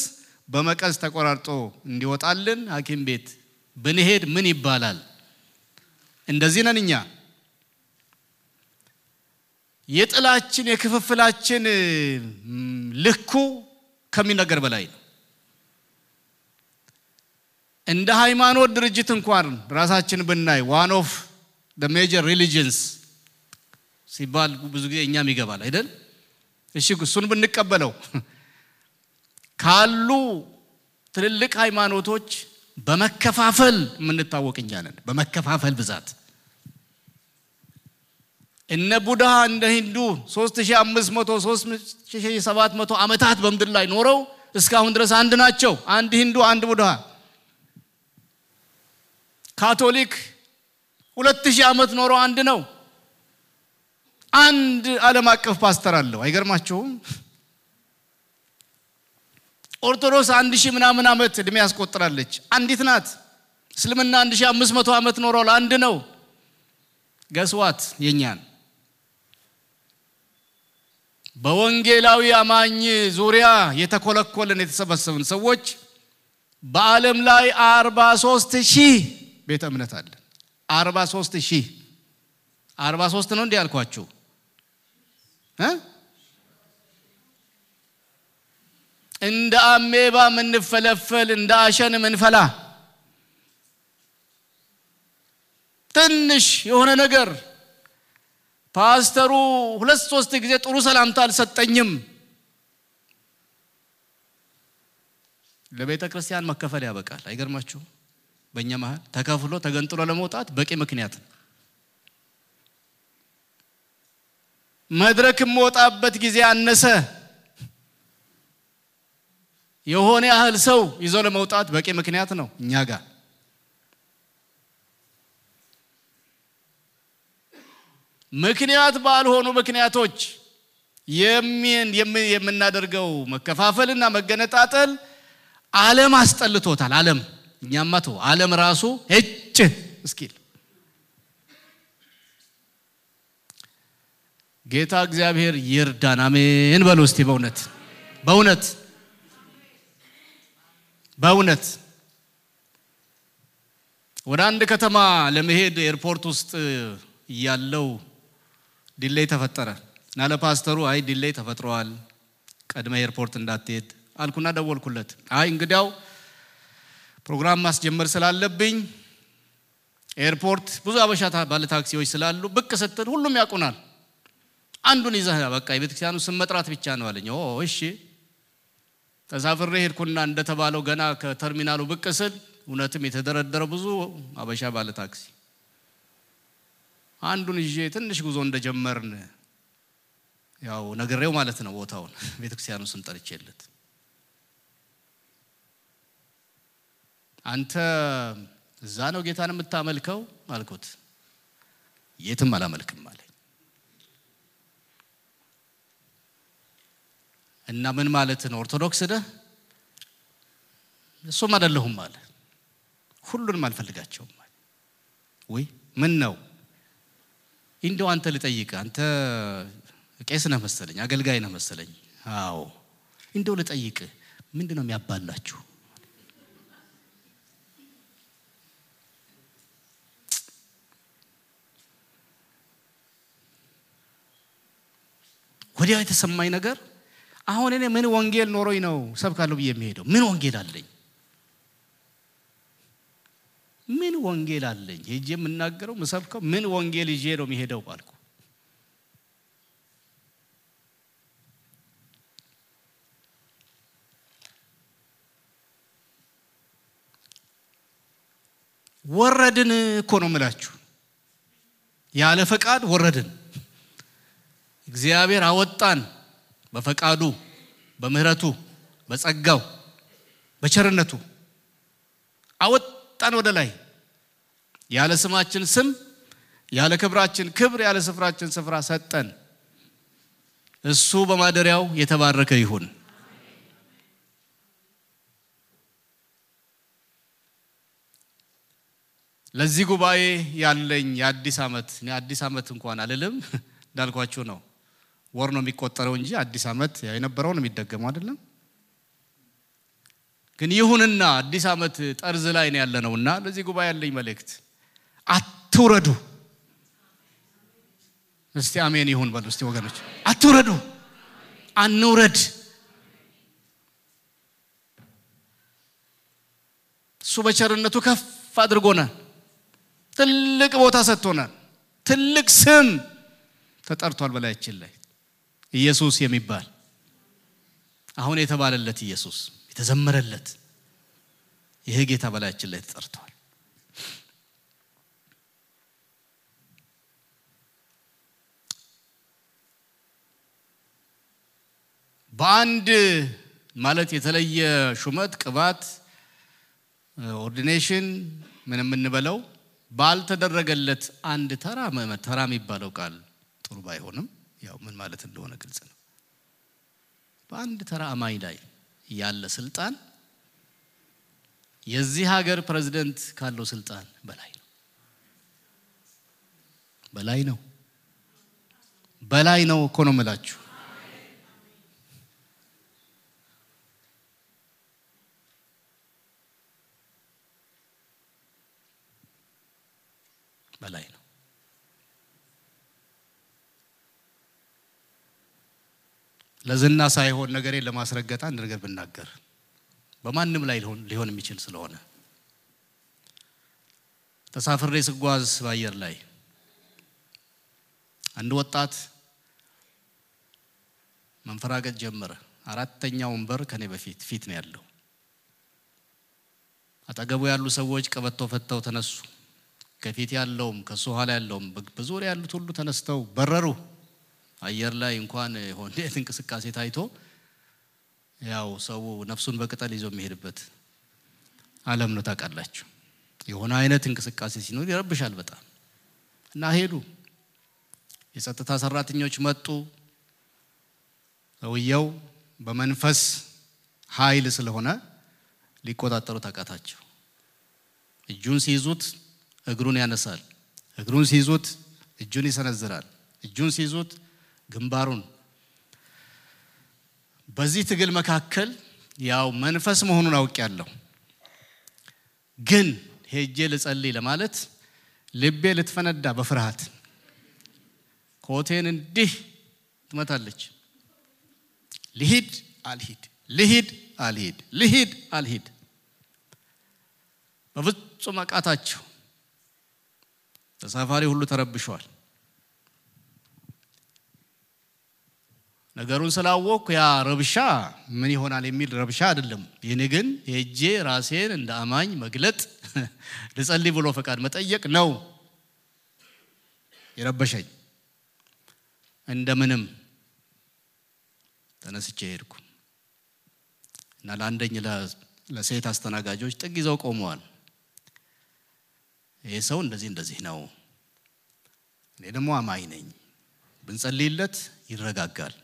በመቀስ ተቆራርጦ እንዲወጣልን ሐኪም ቤት ብንሄድ ምን ይባላል እንደዚህ ነንኛ የጥላችን የክፍፍላችን ልኩ ከሚነገር በላይ ነው እንደ ሃይማኖት ድርጅት እንኳን ራሳችን ብናይ one of the major religions ሲባል ብዙ ጊዜ እኛም ይገባል አይደል እሺ እሱን ብንቀበለው ካሉ ትልልቅ ሃይማኖቶች በመከፋፈል የምንታወቅ እኛ ነን በመከፋፈል ብዛት እነ ቡድሃ እንደ ሂንዱ 3500 3700 ዓመታት በመድር ላይ ኖረው እስካሁን ድረስ አንድ ናቸው አንድ ሂንዱ አንድ ቡድሃ ካቶሊክ 2000 ዓመት ኖረው አንድ ነው አንድ ዓለም አቀፍ ፓስተር አለው አይገርማችሁም ኦርቶዶክስ 1000 ምናምን ዓመት እድሜ ያስቆጥራለች አንዲት ናት እስልምና 1500 ዓመት ኖረው አንድ ነው ገስዋት የኛን በወንጌላዊ አማኝ ዙሪያ የተኮለኮለን የተሰበሰቡን ሰዎች በዓለም ላይ 43000 ቤተ እምነት አለ 43000 43 ነው እንዴ ያልኳችሁ እንደ አሜባ ምንፈለፈል እንደ አሸን ምንፈላ ትንሽ የሆነ ነገር ፓስተሩ 2-3 ጊዜ ጥሩ ሰላምታ አልሰጠኝም ለቤተ ክርስቲያን መከፈል ያበቃል አይገርማችሁ በእኛ መሃል ተከፍሎ ተገንጥሎ ለመውጣት በቂ ምክንያት መድረክ ሞጣበት ጊዜ አነሰ የሆነ ያህል ሰው ይዞ ለመውጣት በቂ ምክንያት ነው እኛ ጋር ምክንያት ባልሆኑ ምክንያቶች የምናደርገው መከፋፈልና መገነጣጠል ዓለም አስጠልቶታል ዓለም እኛማቱ ዓለም ራሱ እጭ እስኪል ጌታ እግዚአብሔር ይርዳን አሜን በሉ እስቲ በእውነት ወደ አንድ ከተማ ለመሄድ ኤርፖርት ውስጥ ያለው ዲሌይ ተፈጠረ እና ለፓስተሩ አይ ዲሌይ ተፈጥሯል ቀድመ ኤርፖርት እንዳትሄድ አልኩና ደወልኩለት አይ እንግዲያው ፕሮግራም ማስጀመር ስላለብኝ ኤርፖርት ብዙ አበሻታ ባለ ታክሲዎች ስላሉ ብቅ ስትል ሁሉም ያቁናል አንዱን ይዘህ በቃ የቤተክርስቲያኑ ስም መጥራት ብቻ ነው አለኝ እሺ ተሳፍሬ ሄድኩና እንደተባለው ገና ከተርሚናሉ ብቅ ስል እውነትም የተደረደረ ብዙ አበሻ ባለ ታክሲ አንዱን ይዤ ትንሽ ጉዞ እንደጀመርን ያው ነገሬው ማለት ነው ቦታውን ቤተክርስቲያኑ ስም ጠርቼለት አንተ እዛ ነው ጌታን የምታመልከው አልኩት የትም አላመልክም አለኝ እና ምን ማለት ነው ኦርቶዶክስ ነህ እሱም አይደለሁም አለ ሁሉንም አልፈልጋቸውም ወይ ምን ነው እንደው አንተ ልጠይቅ አንተ ቄስ ነህ መሰለኝ አገልጋይ ነህ መሰለኝ አዎ እንደው ልጠይቅ ምንድነው የሚያባላችሁ ወዲያው የተሰማኝ ነገር አሁን እኔ ምን ወንጌል ኖሮኝ ነው ሰብካለሁ ብዬ የሚሄደው ምን ወንጌል አለኝ ምን ወንጌል አለኝ ሄጄ የምናገረው መሰብከው ምን ወንጌል ይዤ ነው የሚሄደው ባልኩ ወረድን እኮ ነው የምላችሁ ያለ ፈቃድ ወረድን እግዚአብሔር አወጣን በፈቃዱ በምህረቱ በጸጋው በቸርነቱ አወጣን ወደ ላይ ያለ ስማችን ስም ያለ ክብራችን ክብር ያለ ስፍራችን ስፍራ ሰጠን እሱ በማደሪያው የተባረከ ይሁን ለዚህ ጉባኤ ያለኝ የአዲስ ዓመት እንኳን አልልም እንዳልኳችሁ ነው ወር ነው የሚቆጠረው እንጂ አዲስ ዓመት የነበረው ነው የሚደገመው አይደለም ግን ይሁንና አዲስ ዓመት ጠርዝ ላይ ነው ያለነውና ለዚህ ጉባኤ ያለኝ መልእክት አትውረዱ እስቲ አሜን ይሁን በሉ እስቲ ወገኖች አትውረዱ አንውረድ እሱ በቸርነቱ ከፍ አድርጎናል ትልቅ ቦታ ሰጥቶናል ትልቅ ስም ተጠርቷል በላያችን ላይ ኢየሱስ የሚባል አሁን የተባለለት ኢየሱስ የተዘመረለት ይሄ ጌታ በላያችን ላይ ተጠርቷል። በአንድ ማለት የተለየ ሹመት ቅባት ኦርዲኔሽን ምንም እንበለው ባልተደረገለት አንድ ተራ የሚባለው ቃል ጥሩ ባይሆንም ያው ምን ማለት እንደሆነ ግልጽ ነው። በአንድ ተራ አማኝ ላይ ያለ ስልጣን የዚህ ሀገር ፕሬዝዳንት ካለው ስልጣን በላይ ነው እኮ ነው የምላችሁ። በላይ ነው። ለዝና ሳይሆን ነገሬን ለማስረገጥ አንድ ነገር ብናገር በማንም ላይ ሊሆን የሚችል ስለሆነ ተሳፍሬ ስጓዝ በአየር ላይ አንድ ወጣት መንፈራገጥ ጀመረ። አራተኛው ወንበር ከኔ ፊት ነው ያለው። አጠገቡ ያሉ ሰዎች ቀበቶ ፈተው ተነሱ። ከፊት ያለውም ከሱ ኋላ ያለውም በዙሪያ ያሉት ሁሉ ተነስተው በረሩ። አየር ላይ እንኳን ሆነ እንቅስቃሴ ታይቶ ያው ሰው ነፍሱን በቅጠል ይዞ የሚሄድበት ዓለም ነው ታውቃላችሁ። የሆነ አይነት እንቅስቃሴ ሲኖር ይረብሻል በጣም እና ሄዱ። የጸጥታ ሰራተኞች መጡ። ሰውየው በመንፈስ ኃይል ስለሆነ ሊቆጣጠሩ ታቃታቸው። እጁን ሲይዙት እግሩን ያነሳል፣ እግሩን ሲይዙት እጁን ይሰነዝራል፣ እጁን ሲይዙት ግንባሩን። በዚህ ትግል መካከል ያው መንፈስ መሆኑን አውቄያለሁ። ግን ሄጄ ልጸልይ ለማለት ልቤ ልትፈነዳ በፍርሃት ኮቴን እንዲህ ትመታለች። ልሂድ አልሂድ በፍጹም አቃታቸው። ተሳፋሪ ሁሉ ተረብሸዋል። ነገሩን ስላወቅኩ ያ ረብሻ ምን ይሆናል የሚል ረብሻ አይደለም። የኔ ግን ሄጄ ራሴን እንደ አማኝ መግለጥ ልጸልይ ብሎ ፈቃድ መጠየቅ ነው የረበሸኝ። እንደምንም ተነስቼ ሄድኩ እና ለአንደኛ ለሴት አስተናጋጆች ጥግ ይዘው ቆመዋል። ይሄ ሰው እንደዚህ ነው፣ እኔ ደግሞ አማኝ ነኝ፣ ብንጸልይለት ይረጋጋል።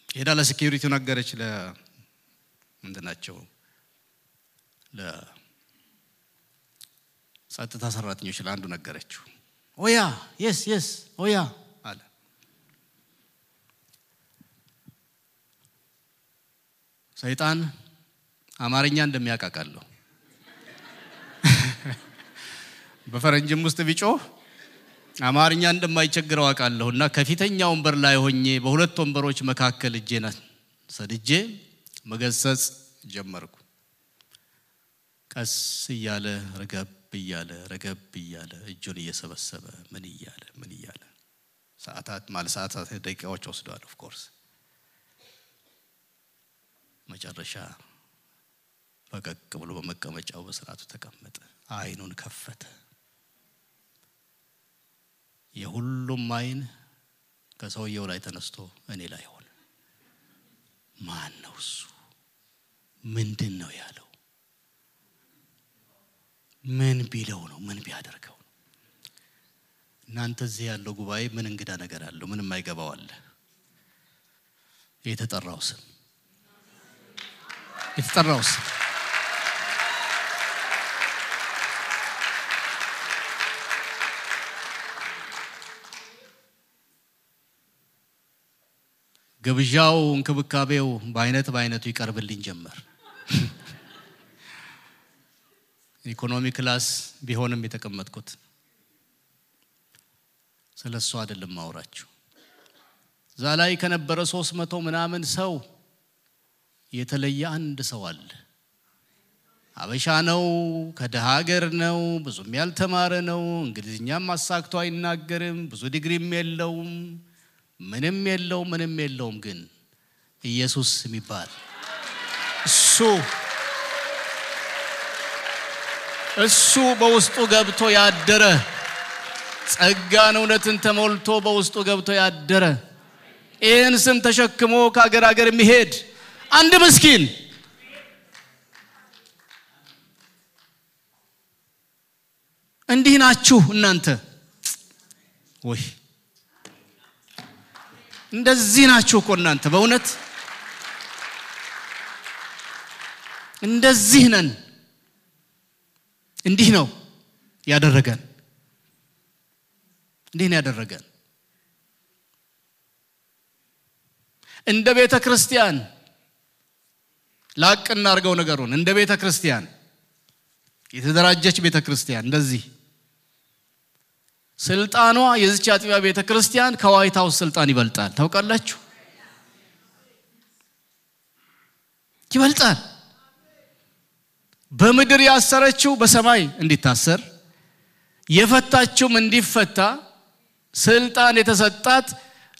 ሄዳ ለሴኩሪቲው ነገረች። ለምንድናቸው ለጸጥታ ሰራተኞች ለአንዱ ነገረችው። ኦያ የስ ኦያ አለ። ሰይጣን አማርኛ እንደሚያቃቃለው በፈረንጅም ውስጥ ቢጮህ አማርኛ እንደማይቸግረው አቃለሁና ከፊተኛው ወንበር ላይ ሆኜ በሁለት ወንበሮች መካከል እጄን ሰድጄ መገሰጽ ጀመርኩ። ቀስ እያለ ረገብ እያለ እጁን እየሰበሰበ ምን እያለ ሰዓታት ደቂቃዎች ወስደዋል። ኦፍ ኮርስ መጨረሻ ፈቀቅ ብሎ በመቀመጫው በስርዓቱ ተቀመጠ። አይኑን ከፈተ። የሁሉም አይን ከሰውየው ላይ ተነስቶ እኔ ላይ ሆነ። ማን ነው እሱ? ምንድነው ያለው? ምን ቢለው ነው? ምን ቢያደርገው ነው? እናንተ እዚህ ያለው ጉባኤ ምን እንግዳ ነገር አለው? ምንም አይገባው አለ። የተጠራው ስም ግብዣው እንክብካቤው በአይነቱ ይቀርብልኝ ጀመር። ኢኮኖሚ ክላስ ቢሆንም የተቀመጥኩት ስለሱ አይደለም ማውራችሁ። ዛላይ ከነበረ 300 ምናምን ሰው የተለየ አንድ ሰው አለ። አበሻ ነው፣ ከደሃ ሀገር ነው፣ ብዙም ያልተማረ ነው፣ እንግሊዝኛም አሳክቶ አይናገርም፣ ብዙ ዲግሪም የለውም፣ ምንም የለውም። ግን ኢየሱስ የሚባል እሱ በውስጡ ገብቶ ያደረ ጸጋን እውነትን ተሞልቶ በውስጡ ገብቶ ያደረ ይህን ስም ተሸክሞ ከአገር አገር የሚሄድ አንድ ምስኪን እንዲህ ናችሁ እናንተ ወይ እንደዚህ ናችሁ እኮ እናንተ በእውነት እንደዚህ ነን እንዲህ ነው ያደረገን እንደ ቤተ ክርስቲያን ላቅና አርገው ነገሩን እንደ ቤተ ክርስቲያን የተደራጀች ቤተ ክርስቲያን እንደዚህ ስልጣኗ የዚች አጥቢያ ቤተ ክርስቲያን ከዋይት ሃውስ ስልጣን ይበልጣል ታውቃላችሁ ይበልጣል በምድር ያሰረችው በሰማይ እንዲታሰር የፈታችው እንዲፈታ ስልጣን የተሰጣት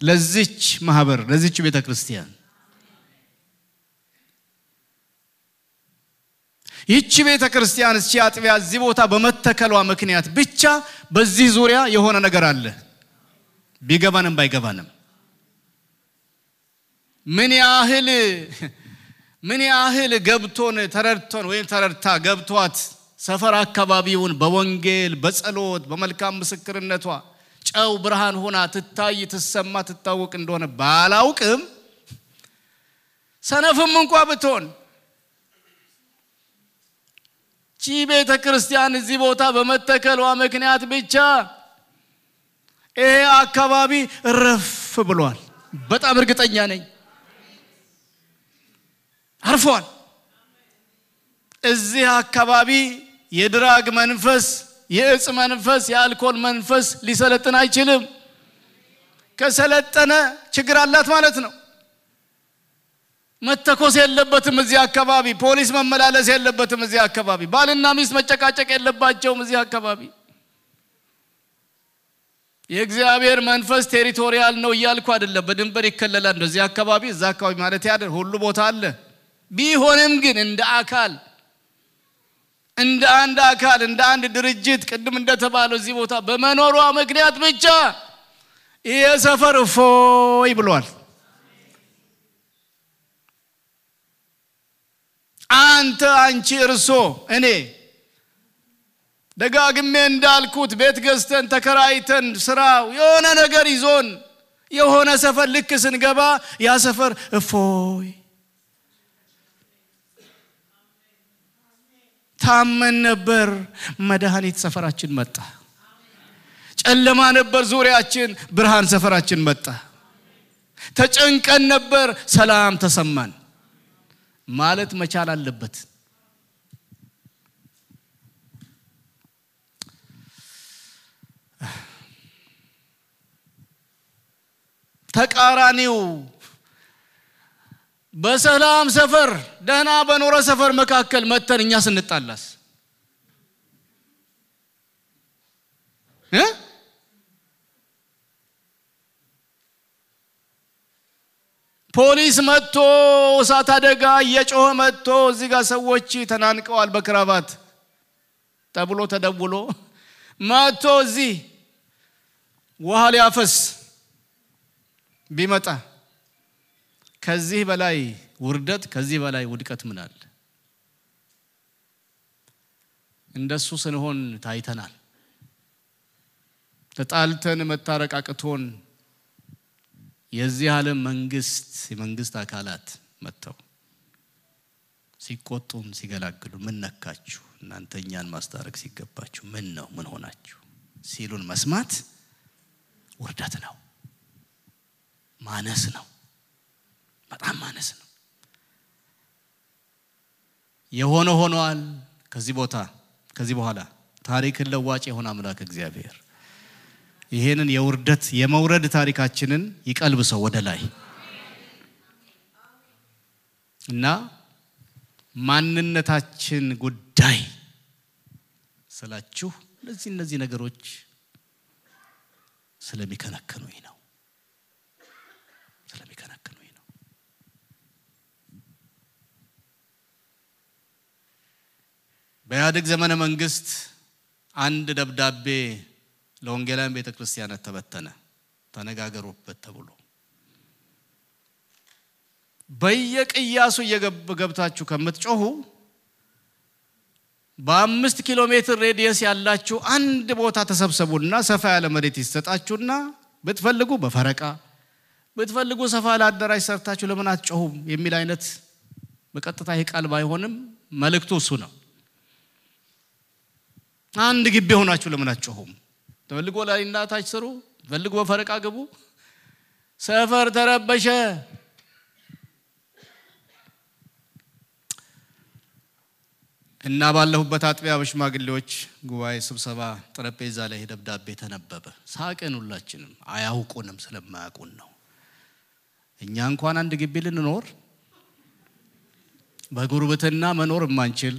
ለዚች ማህበር ለዚች ቤተ ክርስቲያን ይህች ቤተ ክርስቲያን እቺ አጥቢያ እዚህ ቦታ በመተከሏ ምክንያት ብቻ በዚህ ዙሪያ የሆነ ነገር አለ ቢገባንም ባይገባንም ምን ያህል ገብቶን ተረድቶን ወይ ተረድታ ገብቷት ሰፈር አካባቢውን በወንጌል በጸሎት በመልካም ምስክርነቷ ጨው ብርሃን ሆና ትታይ ትሰማ ትታወቅ እንደሆነ ባላውቅም ሰነፍም እንኳን ብትሆን ቤተ ክርስቲያን እዚህ ቦታ በመተከሏ ምክንያት ብቻ አካባቢ ረፍ ብሏል በጣም እርግጠኛ ነኝ አርፏል እዚህ አካባቢ የድራግ መንፈስ የእጽ መንፈስ የአልኮል መንፈስ ሊሰለጥን አይችልም ከሰለጠነ ችግር አላት ማለት ነው መተኮስ የለበትም እዚህ አካባቢ ፖሊስ መመላለስ የለበትም እዚህ አካባቢ ባልና ሚስት መጨቃጨቅ የለባቸውም እዚህ አካባቢ የእግዚአብሔር መንፈስ ቴሪቶሪያል ነው ይያልኩ አይደለም በድንበር ይከለላል እንደዚህ አካባቢ እዛ አካባቢ ማለት ያደር ሁሉ ቦታ አለ ቢሆንም ግን እንደ አንድ አካል እንደ አንድ ድርጅት ቅድም እንደተባለው እዚህ ቦታ በመኖሯ ምክንያት ብቻ የሰፈር ፎይ ብሏል አንቺ እርሶ እኔ ደጋግሜ እንዳልኩት ቤት ገዝተን ተከራይተን ስራው የሆነ ነገር ይዞን የሆነ ሰፈር ልክ ስንገባ ያ ሰፈር ፎይ ታመን ነበር መድኃኒት ሰፈራችን መጣ ጨለማ ነበር ዙሪያችን ብርሃን ሰፈራችን መጣ ተጨንቀን ነበር ሰላም ተሰማን ማለት መቻል አለበት ተቃራኒው በሰላም ሰፈር ደህና በኖረ ሰፈር መካከል መተን እኛ ስንጣላስ ፖሊስ መጥቶ እሳት አደጋ እየጮኸ መጥቶ እዚህ ጋር ሰዎች ተናንቀዋል በክራባት ተብሎ ተደውሎ መጥቶ እዚህ ውሃ ሊያፈስ ቢመጣ ከዚህ በላይ ውርደት ከዚህ በላይ ውድቀት ምን አለ እንደሱ ስንሆን ታይተናል ተጣልተን መታረቃቅቶን የዚህ ዓለም መንግስት አካላት መተው ሲቆጡን ሲገላግሉ ምን ነካችሁ እናንተኛን ማስታረቅ ሲገባችሁ ምን ሆናችሁ ሲሉን መስማት ውርደት ነው ማነስ ነው በጣም ማነስ ነው የሆነ ሆኗል ከዚህ በኋላ ታሪክን ለዋጭ የሆነ አምላክ እግዚአብሔር ይሄንን የውርደት የመውረድ ታሪካችንን ይቀልብሰው ወደ ላይ እና ማንነታችን ጉዳይ ስላችሁ እነዚህ ነገሮች ስለሚከነከኑኝ ነው በኢህአዴግ ዘመነ መንግስት አንድ ደብዳቤ ለወንጌላውያን ቤተክርስቲያናት ተበተነ ተነጋገሩበት ተብሎ በየቅያሱ እየገብታችሁ ከምትጮሁ በ5 ኪሎ ሜትር ሬዲየስ ያላችሁ አንድ ቦታ ተሰብሰቡና ሰፋ ያለ መሬት ይሰጣችሁና ብትፈልጉ በፈረቃ ብትፈልጉ ሰፋ ያለ አዳራሽ ሰርታችሁ ለምን አትጮሁም የሚል አይነት በቀጥታ ይቃል ባይሆንም መልእክቱ እሱ ነው። አንድ ግቢ ሆናችሁ ለምን አትጮሁም? ተፈልጉ ላይና ታች ስሩ፣ ተፈልጉ በፈረቃ ግቡ። ሰፈር ተረበሸ። እና ባለሁበት አጥቢያ በሽማግሌዎች ጉባኤ ስብሰባ ጠረጴዛ ላይ ደብዳቤ ተነበበ። ሳቀን ሁላችንም፣ አያውቁንም ስለማያውቁን ነው። እኛ እንኳን አንድ ግቢ ልንኖር በጉርብትና መኖር ማንችል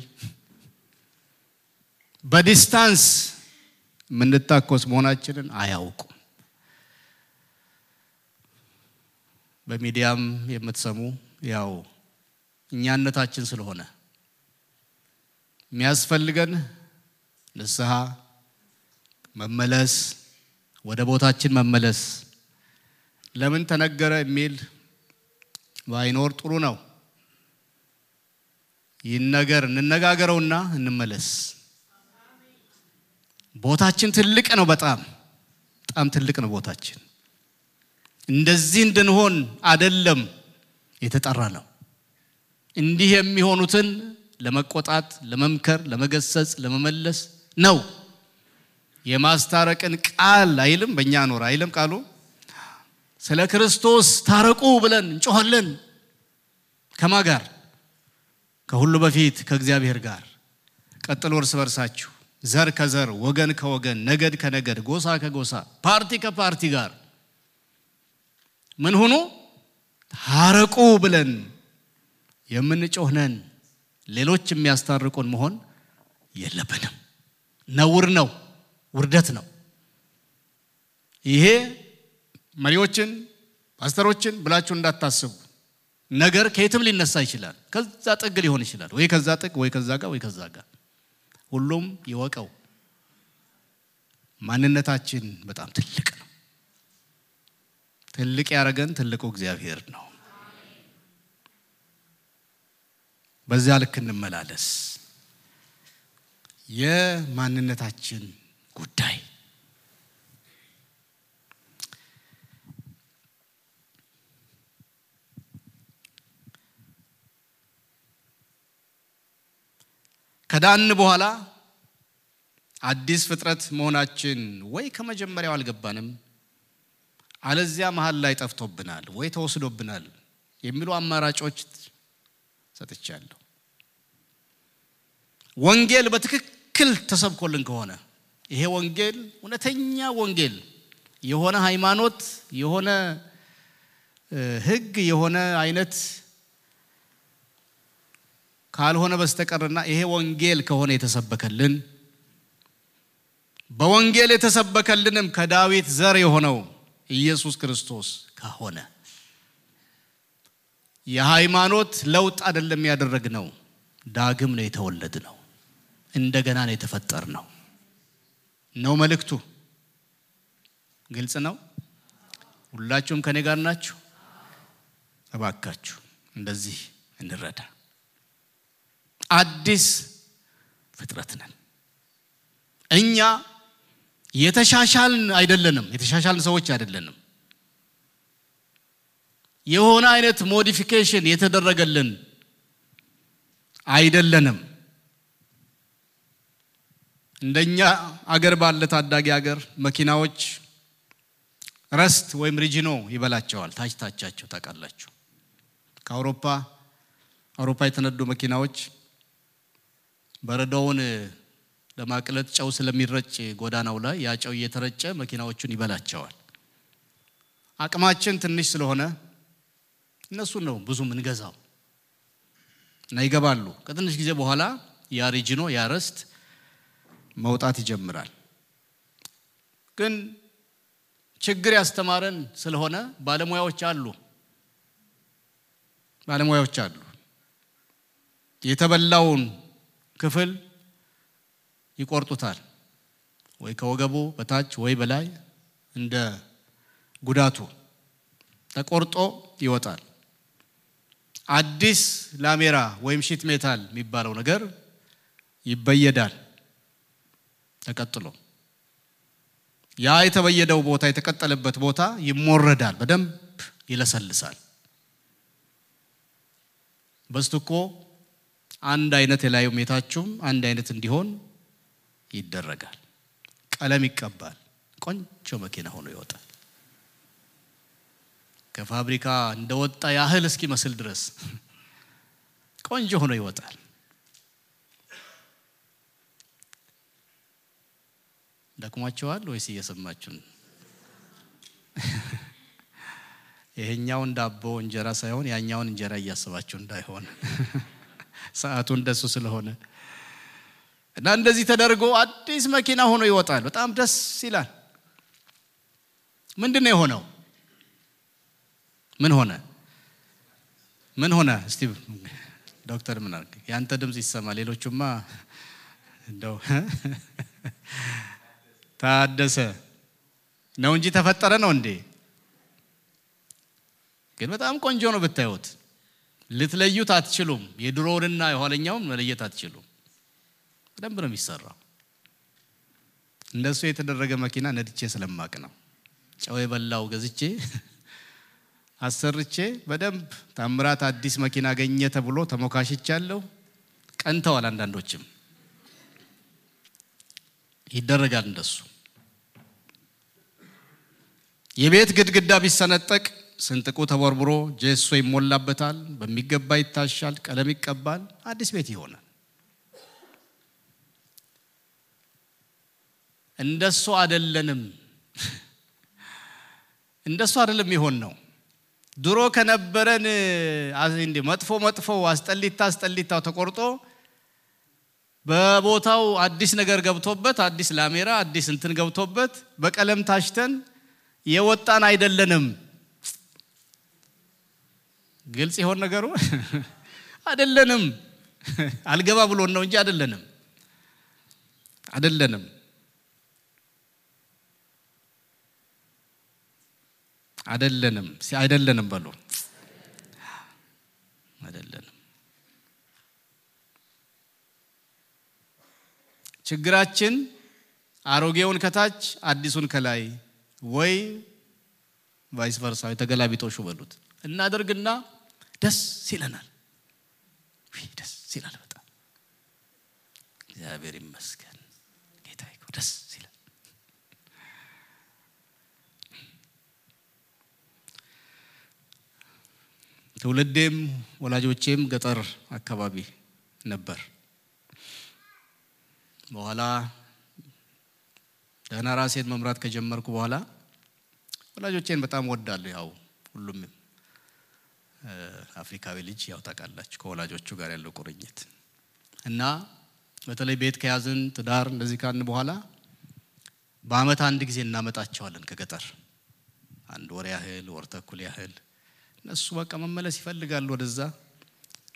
በዲስታንስ ምንታኮስ መሆናችንን አያውቁም። በሚዲያም የምትሰሙ ያው እኛነታችን ስለሆነ የሚያስፈልገን ንስሐ መመለስ ወደ ቦታችን መመለስ ለምን ተነገረ የሚል ባይኖር ጥሩ ነው። ይነገር እንነጋገረውና እንመለስ። ቦታችን ትልቅ ነው፣ በጣም ትልቅ ነው ቦታችን። እንደዚህ እንድንሆን አይደለም የተጠራ ነው። እንዲህ የሚሆኑትን ለመቆጣት ለመምከር ለመገሰጽ ለመመለስ ነው። የማስታረቅን ቃል አይልም በእኛ ኖር አይልም ቃሉ። ስለ ክርስቶስ ታረቁ ብለን እንጮሃለን። ከማን ጋር? ከሁሉ በፊት ከእግዚአብሔር ጋር። ቀጥሎ እርስ በርሳችሁ ዘር ከዘር ወገን ከወገን ነገድ ከነገድ ጎሳ ከጎሳ ፓርቲ ከፓርቲ ጋር ምን ሆኖ ታረቁ ብለን የምንጮህነን። ሌሎች የሚያስታርቁን መሆን የለብንም። ነውር ነው፣ ውርደት ነው። ይሄ መሪዎችን ፓስተሮችን ብላችሁ እንዳታስቡ። ነገር ከየትም ሊነሳ ይችላል። ከዛ ጥግ ሊሆን ይችላል፣ ወይ ከዛ ጥግ ወይ ከዛ ጋር ወይ ከዛ ጋር። ሁሉም ይወቀው ማንነታችን በጣም ትልቅ ነው። ትልቅ ያረገን ትልቁ እግዚአብሔር ነው። በዛ ልክ እንመላለስ። የማንነታችን ጉዳይ ከዳን በኋላ አዲስ ፍጥረት መሆናችን ወይ ከመጀመሪያው አልገባንም አለዚያ መሃል ላይ ጠፍቶብናል ወይ ተወስዶብናል የሚሉ አማራጮች ሰጥቻለሁ። ወንጌል በትክክል ተሰብኮልን ከሆነ ይሄ ወንጌል እውነተኛ ወንጌል የሆነ ሃይማኖት የሆነ ህግ የሆነ አይነት ካልሆነ በስተቀርና ይሄ ወንጌል ከሆነ የተሰበከልን በወንጌል የተሰበከልንም ከዳዊት ዘር የሆነው ኢየሱስ ክርስቶስ ከሆነ የሃይማኖት ለውጥ አይደለም ያደረግነው፣ ዳግም ነው የተወለድነው፣ እንደገና ነው የተፈጠርነው ነው መልእክቱ። ግልጽ ነው። ሁላችሁም ከኔ ጋር ናችሁ? እባካችሁ እንደዚህ እንረዳ። አዲስ ፍጥረት ነን። እኛ የተሻሻልን አይደለንም፣ የተሻሻልን ሰዎች አይደለንም። የሆነ አይነት ሞዲፊኬሽን የተደረገልን አይደለንም። እንደኛ አገር ባለ ታዳጊ አገር መኪናዎች ረስት ወይም ሪጂኖ ይበላቸዋል። ታችታቻቸው ታቃላችሁ። ከአውሮፓ የተነዱ መኪናዎች በረዶውን ለማቅለጥ ጨው ስለሚረጭ ጎዳናው ላይ ያ ጨው እየተረጨ መኪናዎቹን ይበላቸዋል። አቅማችን ትንሽ ስለሆነ እነሱ ነው ብዙ ምን ገዛው እና ይገባሉ። ከትንሽ ጊዜ በኋላ ያ ሪጂኖ ያ ረስት መውጣት ይጀምራል። ግን ችግር ያስተማረን ስለሆነ ባለሙያዎች አሉ የተበላውን ክፍል ይቆርጡታል ወይ ከወገቡ በታች ወይ በላይ እንደ ጉዳቱ ተቆርጦ ይወጣል አዲስ ላሜራ ወይም ሺት ሜታል የሚባለው ነገር ይበየዳል ተቀጥሎ ያ የተበየደው ቦታ የተቀጠለበት ቦታ ይሞረዳል በደንብ ይለሰልሳል በስተኮ አንድ አይነት የላዩ ሜታችሁም አንድ አይነት እንዲሆን ይደረጋል ቀለም ይቀባል ቆንጆ መኪና ሆኖ ይወጣል ከፋብሪካ እንደወጣ ያህል እስኪመስል ድረስ ቆንጆ ሆኖ ይወጣል ደክሟቸዋል ወይስ እየሰማችሁ ይሄኛው ዳቦ እንጀራ ሳይሆን ያኛውን እንጀራ እያሰባችሁ እንዳይሆን ሰዓቱ እንደሱ ስለሆነ እና እንደዚህ ተደርጎ አዲስ መኪና ሆኖ ይወጣል በጣም ደስ ይላል ምንድነው የሆነው ምን ሆነ እስቲ ዶክተር ምን አርግ ያንተ ድምጽ ይሰማ ሌሎቹማ እንደው ታደሰ ነው እንጂ ተፈጠረ ነው እንዴ ግን በጣም ቆንጆ ነው ብታዩት ልትለዩት አትችሉም የድሮውንና የኋለኛውን መለየት አትችሉም በደንብ ነው የሚሰራው እንደሱ የተደረገ መኪና ነድቼ ስለማቅ ነው ጨው የበላው ገዝቼ አሰርቼ በደንብ ታምራት አዲስ መኪና አገኘ ተብሎ ተሞካሽቻለሁ ቀንተዋል አንዳንዶችም ይደረጋል እንደሱ የቤት ግድግዳ ቢሰነጠቅ ስንጥቁ ተቦርብሮ ጄሶ ይሞላበታል በሚገባ ይታሻል ቀለም ይቀባል አዲስ ቤት ይሆናል እንደሱ አይደለም ይሆን ነው ድሮ ከነበረን እንደ መጥፎ አስጠሊታው ተቆርጦ በቦታው አዲስ ነገር ገብቶበት አዲስ ላሜራ አዲስ እንትን ገብቶበት በቀለም ታሽተን የወጣን አይደለንም ግልጽ ይሆን ነገሩ አይደለንም አልገባ ብሎን ነው እንጂ አይደለንም በሉ አይደለንም ችግራችን አሮጌውን ከታች አዲሱን ከላይ ወይ ቫይስ ቨርሳ የተገላቢጦሹ በሉት እናደርግና ደስ ይለናል ደስ ይላል በጣም እግዚአብሔር ይመስገን ጌታዬ ደስ ይላል ትውልዴም ወላጆቼም ገጠር አካባቢ ነበር በኋላ ደህና ራሴን መምራት ከጀመርኩ በኋላ ወላጆቼን በጣም ወዳለሁ ያው ሁሉም አፍሪካዊ ልጅ ያው ታውቃላችሁ ከወላጆቹ ጋር ያለው ቁርኝት እና በተለይ ቤት ከያዝን ትዳር እንደዚህ ካልን በኋላ በአመት አንድ ጊዜ እናመጣቸዋለን ከገጠር አንድ ወር ያህል ወር ተኩል ያህል እነሱ በቃ መመለስ ይፈልጋሉ ወደዛ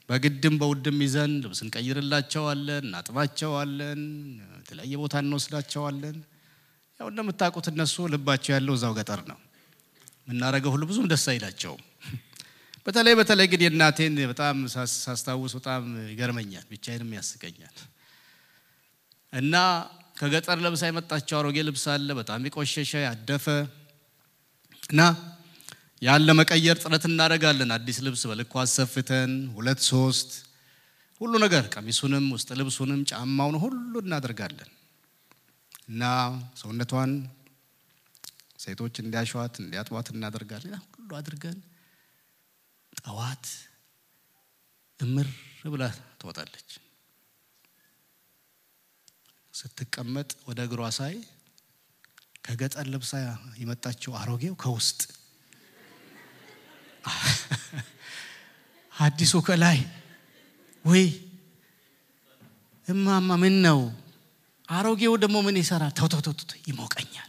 በግድም በውድም ይዘን ልብስን ቀይርላቸዋለን እናጥባቸዋለን የተለያየ ቦታ እንወስዳቸዋለን ያው እንደምታውቁት እነሱ ልባቸው ያለው እዛው ገጠር ነው ምናረገው ሁሉ ብዙም ደስ አይላቸውም በተለይ ግን የእናቴን በጣም ሳስታውስ በጣም ይገርመኛል ብቻዬንም ያስቀኛል እና ከገጠር ለብሳ የመጣቸው አሮጌ ልብስ አለ በጣም ይቆሸሸ ያደፈ እና ያለ መቀየር ጥረት እናደርጋለን አዲስ ልብስ በልኩ አሰፍተን 2-3 ሁሉ ነገር ቀሚሱንም ውስጥ ልብሱንም ጫማውን ሁሉ እናደርጋለን እና ሰውነቷን ሴቶች እንዲያሸዋት እንዲያጥዋት እናደርጋለን ሁሉ አድርገን ጠዋት እምር ብላ ትወጣለች ስትቀመጥ ወደ እግሯ ሳይ ከገጠር ልብሳ የመጣችው አሮጌው ከውስጥ አዲሱ ከላይ ወይ እማማ ምን ነው አሮጌው ደግሞ ምን ይሰራል ተው ይሞቀኛል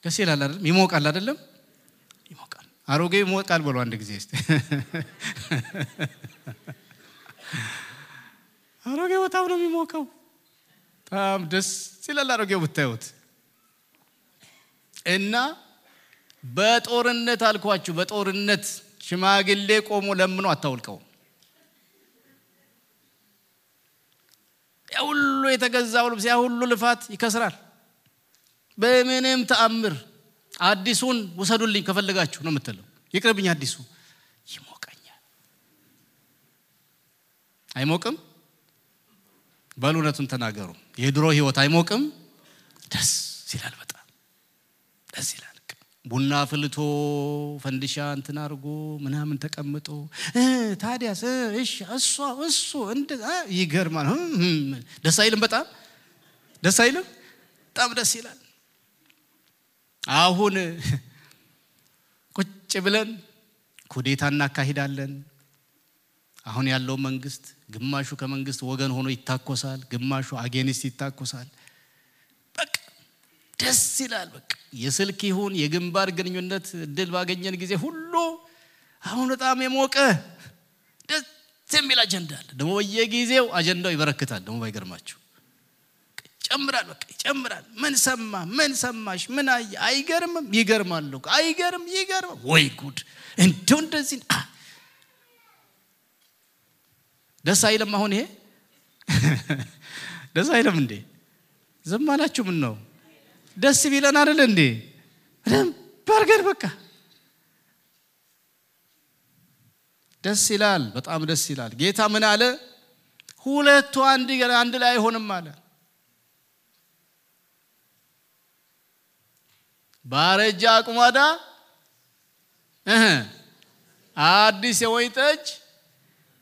ደስ ይላል አይደል ይሞቃል አይደለም ይሞቃል አሮጌ ይሞቃል ብሎ አንድ ጊዜ እስቲ አሮጌ በጣም ነው የሚሞቀው በጣም ደስ ይላል አሮጌው ብታዩት እና በጦርነት አልኳችሁ በጦርነት ሽማግሌ ቆሞ ለምኖ አታውልቀው ያውሉ የተገዛው ልብስ ያውሉ ልፋት ይከስራል በምንም ተአምር አዲሱን ወሰዱልኝ ከፈለጋችሁ ነው የምትለው ይቅርብኝ አዲሱ ይሞቀኛል አይሞቅም ባሉነቱን ተናገሩ የድሮ ህይወት አይሞቅም ደስ ይላል በጣም ደስ ይላል ቡና ፍልቶ ፈንዲሻ እንትን አርጎ ምናምን ተቀምጦ ታዲያስ እሺ እሱ እንደ ይገርማል ደስ አይልም በጣም ደስ አይልም በጣም ደስ ይላል አሁን ቁጭ ብለን ኩዴታና ካሂዳለን አሁን ያለው መንግስት ግማሹ ከመንግስት ወገን ሆኖ ይታኮሳል ግማሹ አጌኒስት ይታኮሳል በቃ ደስ ይላል በቃ የስልክ ይሁን የግንባር ግንኙነት ድል ባገኘን ጊዜ ሁሉ አሁን በጣም የሞቀ ደስ የሚል አጀንዳ አለ ደሞ በየጊዜው አጀንዳው ይበረክታል ደሞ ባይገርማችሁ ጨምራል በቃ ይጨምራል ምን ሰማሽ ምን አይገርምም ይገርማል አይገርም ይገርም ወይ ጉድ እንደዚህ ደስ አይልም አሁን ይሄ ደስ አይልም እንዴ ዝም አላችሁ ምን ነው ደስ ቢለን አይደል እንዴ በርገር በቃ ደስ ይላል በጣም ደስ ይላል ጌታ ምን አለ ሁለቱ አንድ ላይ አይሆንም አለ ባረጃ አቁማዳ አዲስ የወይን ጠጅ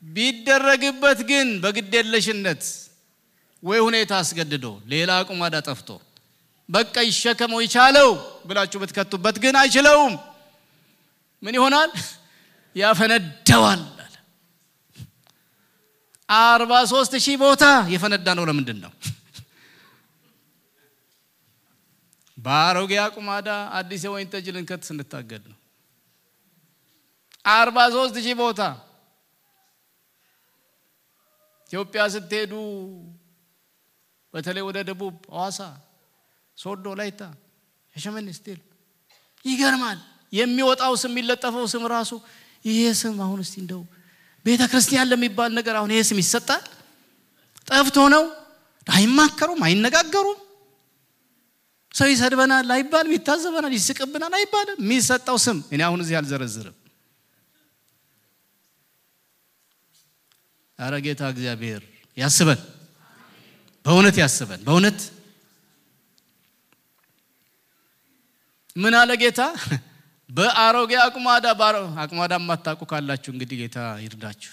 ቢደረግበት ግን በግዴለሽነት ወይ ሁኔታ አስገድዶ ሌላ አቁማዳ ጠፍቶ በቃ ይሸከመው ይቻለው ብላችሁ በትከቱበት ግን አይችለውም ምን ይሆናል ያፈነዳዋል 43000 ቦታ የፈነዳ ነው ለምንድን ነው ባሮጌ አቁማዳ አዲስ የወይን ጠጅ ልንከት ስንታገድ ነው 43000 ቦታ ኢትዮጵያ ስትሄዱ በተለይ ወደ ደቡብ አዋሳ ሶዶ ላይታ ሸመን ስቲል ይገርማል የሚወጣው ስም የሚለጠፈው ስም ራሱ ይሄ ስም አሁን እስቲ እንደው ቤተክርስቲያን ለሚባል ነገር አሁን ይሄ ስም ይሰጣል ጠፍቶ ነው አይማከሩም አይነጋገሩም ሰው ይሰድበናል አይባልም ይታዘበናል ይስቅብናል አይባልም የሚሰጣው ስም እኔ አሁን እዚህ አልዘረዝርም አረጋታ እግዚአብሔር ያስበን በእውነት ያስበን በእውነት ምን አለ ጌታ በአሮጌ አቁማዳ ማታቁ ካላችሁ እንግዲህ ጌታ ይርዳችሁ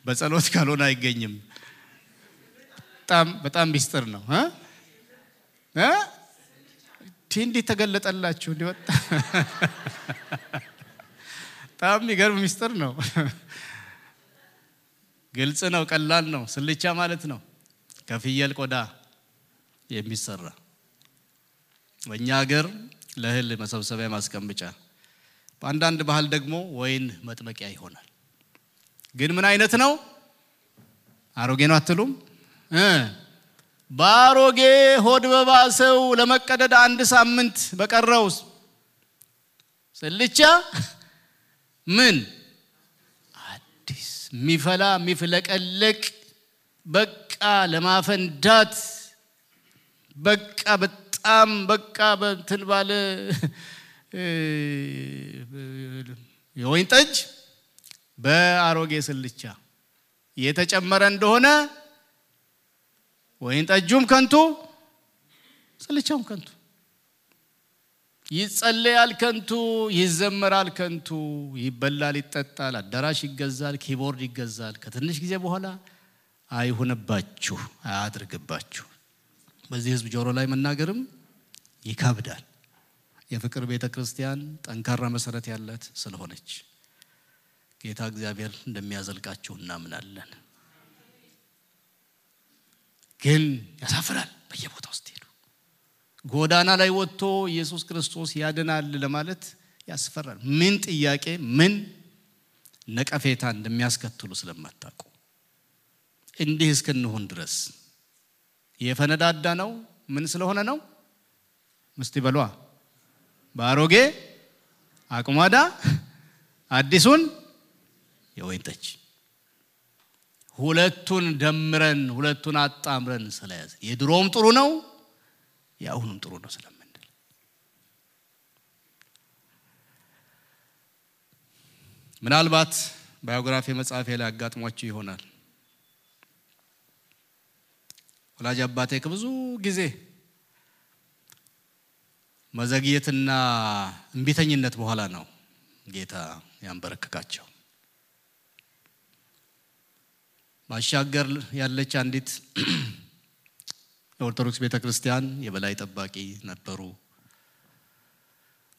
በጸሎት ካልሆነ አይገኝም በጣም ሚስጥር ነው እንዴ ተገለጠላችሁ ሊወጣ በጣም ይገርም ሚስጥር ነው ግልጽ ነው ቀላል ነው ስልቻ ማለት ነው ከፍየል ቆዳ የሚሰራ በእኛ ሀገር ለእህል መሰብሰቢያ ማስቀመጫ በአንዳንድ ባህል ደግሞ ወይን መጥመቂያ ይሆናል ግን ምን አይነት ነው አሮጌ ነው አትሉም ባሮጌ ሆድ በባሰው ለመቀደድ አንድ ሳምንት በቀረው ስልቻ ምን አዲስ ሚፈላ ሚፍለቀለቅ በቃ ለማፈንዳት በቃ በጣም በቃ በእንትን ባለ የወይን ጠጅ በአሮጌ ስልቻ የተጨመረ እንደሆነ ወይን ጠጁም ከንቱ ስልቻውም ከንቱ ይጸለያል ከንቱ ይዘመራል ከንቱ ይበላል ይጠጣል አዳራሽ ይገዛል ኪቦርድ ይገዛል ከትንሽ ጊዜ በኋላ አይሆነባችሁ አያድርግባችሁ በዚህ ህዝብ ጆሮ ላይ መናገርም ይካብዳል የፍቅር ቤተክርስቲያን ጠንካራ መሰረት ያላት ስለሆነች ጌታ እግዚአብሔር እንደሚያዘልቃችሁ እናምናለን ግን ያሳፍራል በየቦታው ስትሄዱ ጎዳና ላይ ወጥቶ ኢየሱስ ክርስቶስ ያድናል ለማለት ያስፈራል። ምን ጥያቄ ምን ነቀፌታ እንደሚያስከትሉ ስለማታውቁ እንዲህ እስከነሆን ድረስ የፈነዳዳ ነው። ምን ስለሆነ ነው? ምስቲ በሏ ባሮጌ አቁማዳ አዲሱን የወይን ጠጅ ሁለቱን ደምረን ሁለቱን አጣምረን ስለያዘ የድሮም ጥሩ ነው ያሁንም ጥሩ ነው ስለምንል ምናልባት ባዮግራፊ መጽሐፌ ላይ አጋጥሟችሁ ይሆናል። ወላጅ አባቴ ከብዙ ጊዜ መዘግየትና እንቢተኝነት በኋላ ነው ጌታ ያንበረከካቸው። ባሻገር ያለች አንዲት የኦርቶዶክስ ቤተክርስቲያን የበላይ ጠባቂ ነበሩ።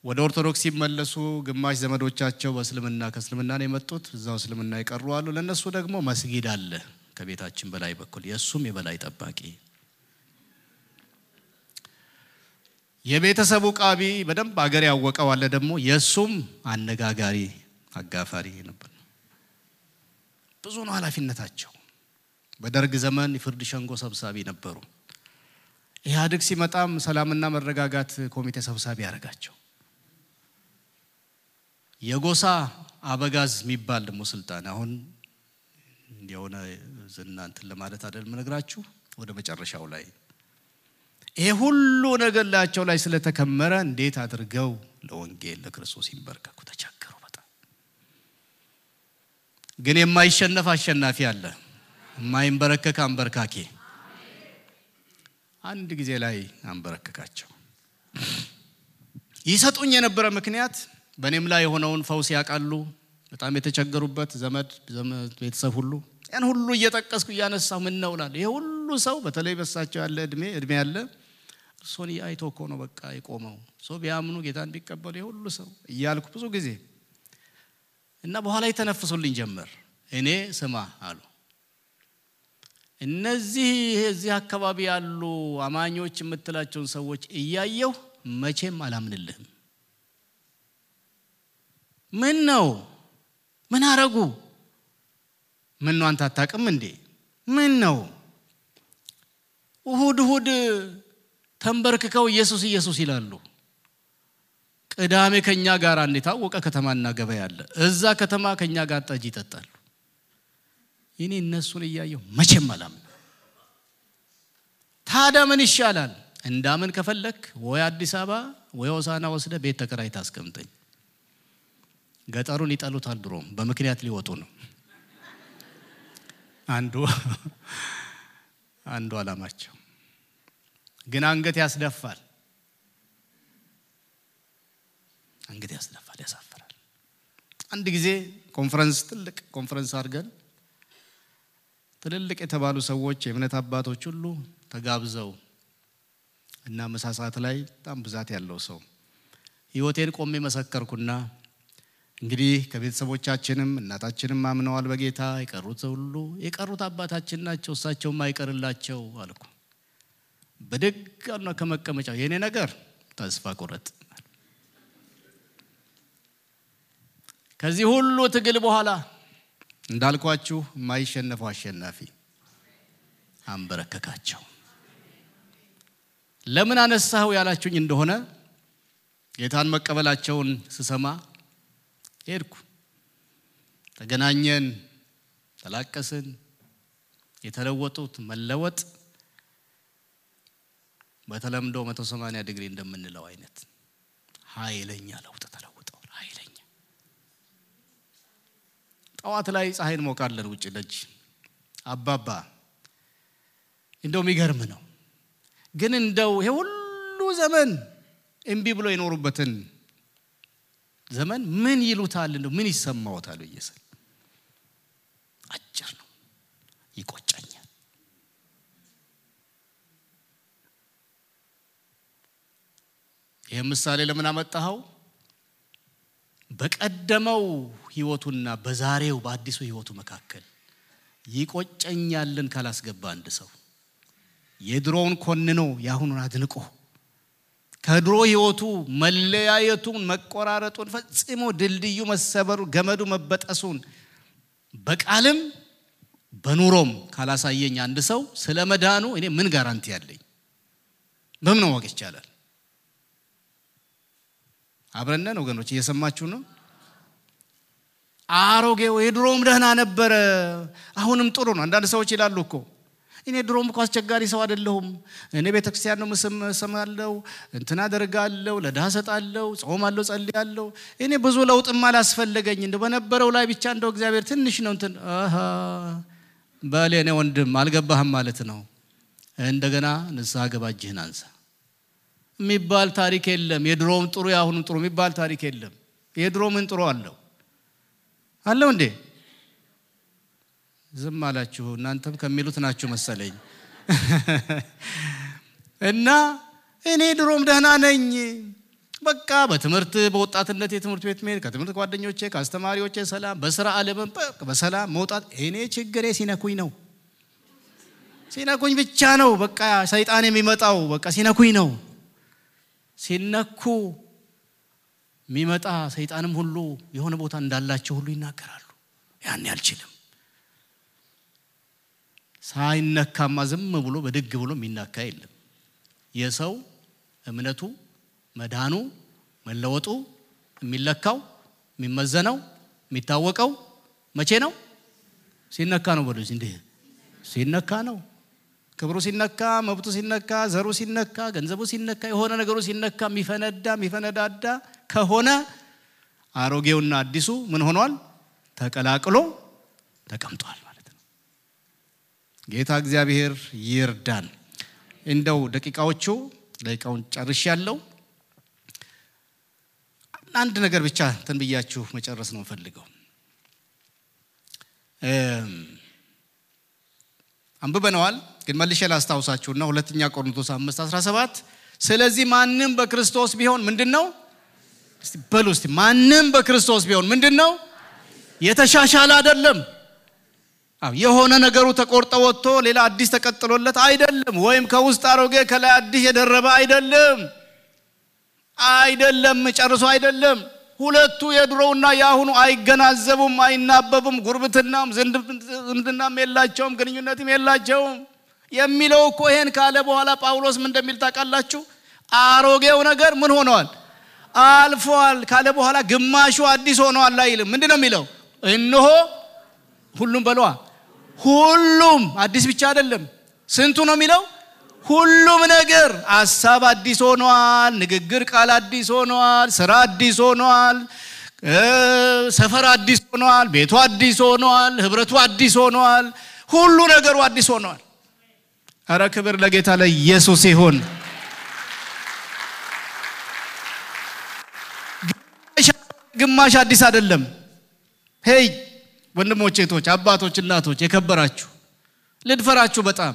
ወደ ኦርቶዶክስ ሲመለሱ ግማሽ ዘመዶቻቸው በእስልምና ከእስልምና ነው የመጡት፣ እዛው እስልምና ይቀሩ አሉ። ለነሱ ደግሞ መስጊድ አለ ከቤታችን በላይ በኩል የሱም የበላይ ጠባቂ የቤተሰቡ ቃቢ በደንብ አገር ያወቀው አለ ደግሞ የሱም አነጋጋሪ አጋፋሪ ነበር። ብዙ ነው ኃላፊነታቸው። በደርግ ዘመን የፍርድ ሸንጎ ሰብሳቢ ነበሩ። ኢህአዴግ ሲመጣም ሰላምና መረጋጋት ኮሚቴ ሰብሳቢ ያረጋቸው። የጎሳ አበጋዝ የሚባል ደግሞ ስልጣን አሁን እንደሆነ ዝናንትን ለማለት አይደል ምነግራችሁ ወደ መጨረሻው ላይ ይሄ ሁሉ ነገር ላያቸው ላይ ስለተከመረ እንዴት አድርገው ለወንጌል ለክርስቶስ ይንበርከኩ ተቸገሩ በጣም። ግን የማይሸነፍ አሸናፊ አለ፣ የማይንበረከክ አንበርካኪ። አንድ ጊዜ ላይ አንበረከካቸው። ይሰጡኝ የነበረ ምክንያት በእኔም ላይ የሆነውን ፈውስ ያቃሉ። በጣም የተቸገሩበት ዘመድ ቤተሰብ ሁሉ ያን ሁሉ እየጠቀስኩ ያነሳው ምን ነው ላል ይሄ ሁሉ ሰው በተለይ በሳቸው ያለ እድሜ ያለ ሶኒ አይቶ እኮ ነው በቃ ይቆመው ሶ ቢያምኑ ጌታን ቢቀበሉ ይሄ ሁሉ ሰው እያልኩ ብዙ ጊዜ እና በኋላ የተነፍሱልኝ ጀመር። እኔ ስማ አሉ እዚህ አካባቢ ያሉ አማኞች የምትላቸውን ሰዎች እያየው መቼም አላምንልህም። ምን ነው ምን አረጉ? ምን ነው አንተ አታውቅም እንዴ? ምን ነው እሁድ ተንበርክከው ኢየሱስ ይላሉ። ቅዳሜ ከኛ ጋር እንታወቀ ከተማና ገበያ አለ። እዛ ከተማ ከኛ ጋር ጠጅ ይጠጣሉ። እኔ እነሱን እያየው መቼም አላምንም። ታዲያ ምን ይሻላል? እንዳምን ከፈለክ ወይ አዲስ አበባ ወይ ሆሳና ወስደ ቤት ተከራይታ አስቀምጠኝ። ገጠሩን ይጠሉታል ድሮም በምክንያት ሊወጡ ነው። አንዱ አላማቸው ግን አንገት ያስደፋል ያሳፍራል። አንድ ጊዜ ትልቅ ኮንፈረንስ አድርገን ትልልቅ የተባሉ ሰዎች የእምነት አባቶች ሁሉ ተጋብዘው እና መሳሳት ላይ በጣም ብዛት ያለው ሰው ህይወቴን ቆሜ መሰከርኩና እንግዲህ ከቤተሰቦቻችንም እናታችንም አምነዋል በጌታ የቀሩት አባታችን ናቸው እሳቸው ማይቀርላቸው አልኩ። በደጋና ከመቀመጫው የኔ ነገር ተስፋ ቆረጥ። ከዚህ ሁሉ ትግል በኋላ እንዳልኳችሁ ማይሸነፈው አሸናፊ አንበረከካቸው። ለምን አነሳው ያላችሁኝ እንደሆነ ጌታን መቀበላቸውን ስሰማ ሄድኩ። ተገናኘን፣ ተላቀስን። የተለወጡት መለወጥ በተለምዶ 180 ዲግሪ እንደምንለው አይነት ኃይለኛ ለውጥ ተለውጠዋል። ኃይለኛ ጠዋት ላይ ፀሐይን ሞቃለን ውጪ ደጅ አባባ እንደው የሚገርም ነው። ግን እንደው ይሄ ሁሉ ዘመን እምቢ ብሎ የኖሩበትን ዘመን ምን ይሉታል እንደው ምን ይሰማዎታል ኢየሱስ አጭር ነው ይቆጨኛል። ይሄ ምሳሌ ለምን አመጣኸው? በቀደመው ህይወቱና በዛሬው በአዲሱ ህይወቱ መካከል ይቆጨኛልን ካላስገባ አንድ ሰው የድሮውን ኮንኖ ያሁኑን አድንቆ ከድሮ ህይወቱ መለያየቱን መቆራረጡን ፈጽሞ ድልድዩ መሰበሩ ገመዱ መበጠሱን በቃልም በኑሮም ካላሳየኝ አንድ ሰው ስለመዳኑ እኔ ምን ጋራንቲ ያለኝ በምን ማወቅ ይቻላል? አብረን ወገኖች እየሰማችሁ ነው? አሮጌው የድሮም ደህና ነበር አሁንም ጥሩ ነው። አንዳንድ ሰዎች ይላሉ እኮ እኔ ድሮም እኮ አስቸጋሪ ሰው አይደለሁም፣ እኔ ቤተክርስቲያን ነው መስማለው፣ እንትና አደርጋለሁ፣ ለድሃ ሰጣለሁ፣ ጾማለሁ፣ ጸልያለሁ፣ እኔ ብዙ ለውጥም አላስፈልገኝ እንደው በነበረው ላይ ብቻ እንደው እግዚአብሔር ትንሽ ነው እንትን ባለኔ ወንድም አልገባህም ማለት ነው። እንደገና ንስሐ ገባ እጅህን አንሳ የሚባል ታሪክ የለም። የድሮም ጥሩ ያሁንም ጥሩ የሚባል ታሪክ የለም። የድሮ ምን ጥሩ አለው እንዴ? ዝም አላችሁ እናንተም ከሚሉት ናችሁ መሰለኝ። እና እኔ ድሮም ደህና ነኝ በቃ በትምህርት በወጣትነት የትምህርት ቤት መሄድ ከትምህርት ጓደኞቼ ከአስተማሪዎቼ ሰላም በስራ ዓለም በሰላም መውጣት እኔ ችግሬ ሲነኩኝ ብቻ ነው። በቃ ሰይጣን የሚመጣው በቃ ሲነኩኝ ነው። ሲነኩ የሚመጣ ሰይጣንም ሁሉ የሆነ ቦታ እንዳላቸው ሁሉ ይናገራሉ። ያን ያልችልም ሳይነካማ ዝም ብሎ በድግ ብሎ የሚናካ የለም። የሰው እምነቱ መዳኑ መለወጡ የሚለካው የሚመዘነው የሚታወቀው መቼ ነው? ሲነካ ነው። በሉ እንዴ ሲነካ ነው። ክብሩ ሲነካ፣ መብቱ ሲነካ፣ ዘሩ ሲነካ፣ ገንዘቡ ሲነካ፣ የሆነ ነገሩ ሲነካ የሚፈነዳዳ ከሆነ አሮጌውና አዲሱ ምን ሆኗል? ተቀላቅሎ ተቀምጧል ማለት ነው። ጌታ እግዚአብሔር ይርዳን። እንደው ደቂቃውን ጨርሻለሁ። አንድ ነገር ብቻ ተንብያችሁ መጨረስ ነው ፈልገው። አንብበነዋል ግን መልሼ ላስታውሳችሁና ሁለተኛ ቆሮንቶስ 5:17 ስለዚህ ማንንም በክርስቶስ ቢሆን ምንድነው? እስቲ በሉ እስቲ ማንንም በክርስቶስ ቢሆን ምንድነው? የተሻሻለ አይደለም። የሆነ ነገሩ ተቆርጦ ወጥቶ ሌላ አዲስ ተቀጥሎለት አይደለም። ወይም ከውስጥ አሮጌ ከላይ አዲስ የደረበ አይደለም ጨርሶ አይደለም። ሁለቱ የድሮውና ያሁኑ አይገናዘቡም፣ አይናበቡም። ጉርብትናም ዝምድናም የላቸውም፣ ግንኙነትም የላቸውም የሚለው እኮ ይሄን ካለ በኋላ ጳውሎስ ምን እንደሚል ታውቃላችሁ? አሮጌው ነገር ምን ሆኗል? አልፏል ካለ በኋላ ግማሹ አዲስ ሆኗል አይልም። ምንድነው የሚለው? እነሆ ሁሉም አዲስ ብቻ አይደለም። ስንቱ ነው የሚለው? ሁሉም ነገር ሐሳብ አዲስ ሆኗል፣ ንግግር ቃል አዲስ ሆኗል፣ ስራ አዲስ ሆኗል፣ ሰፈር አዲስ ሆኗል፣ ቤቱ አዲስ ሆኗል፣ ህብረቱ አዲስ ሆኗል፣ ሁሉ ነገሩ አዲስ ሆኗል። አረ ክብር ለጌታ ለኢየሱስ ይሁን። ግማሽ አዲስ አይደለም። ሄይ ወንድሞቼ እህቶች አባቶች እናቶች የከበራችሁ ልድፈራችሁ በጣም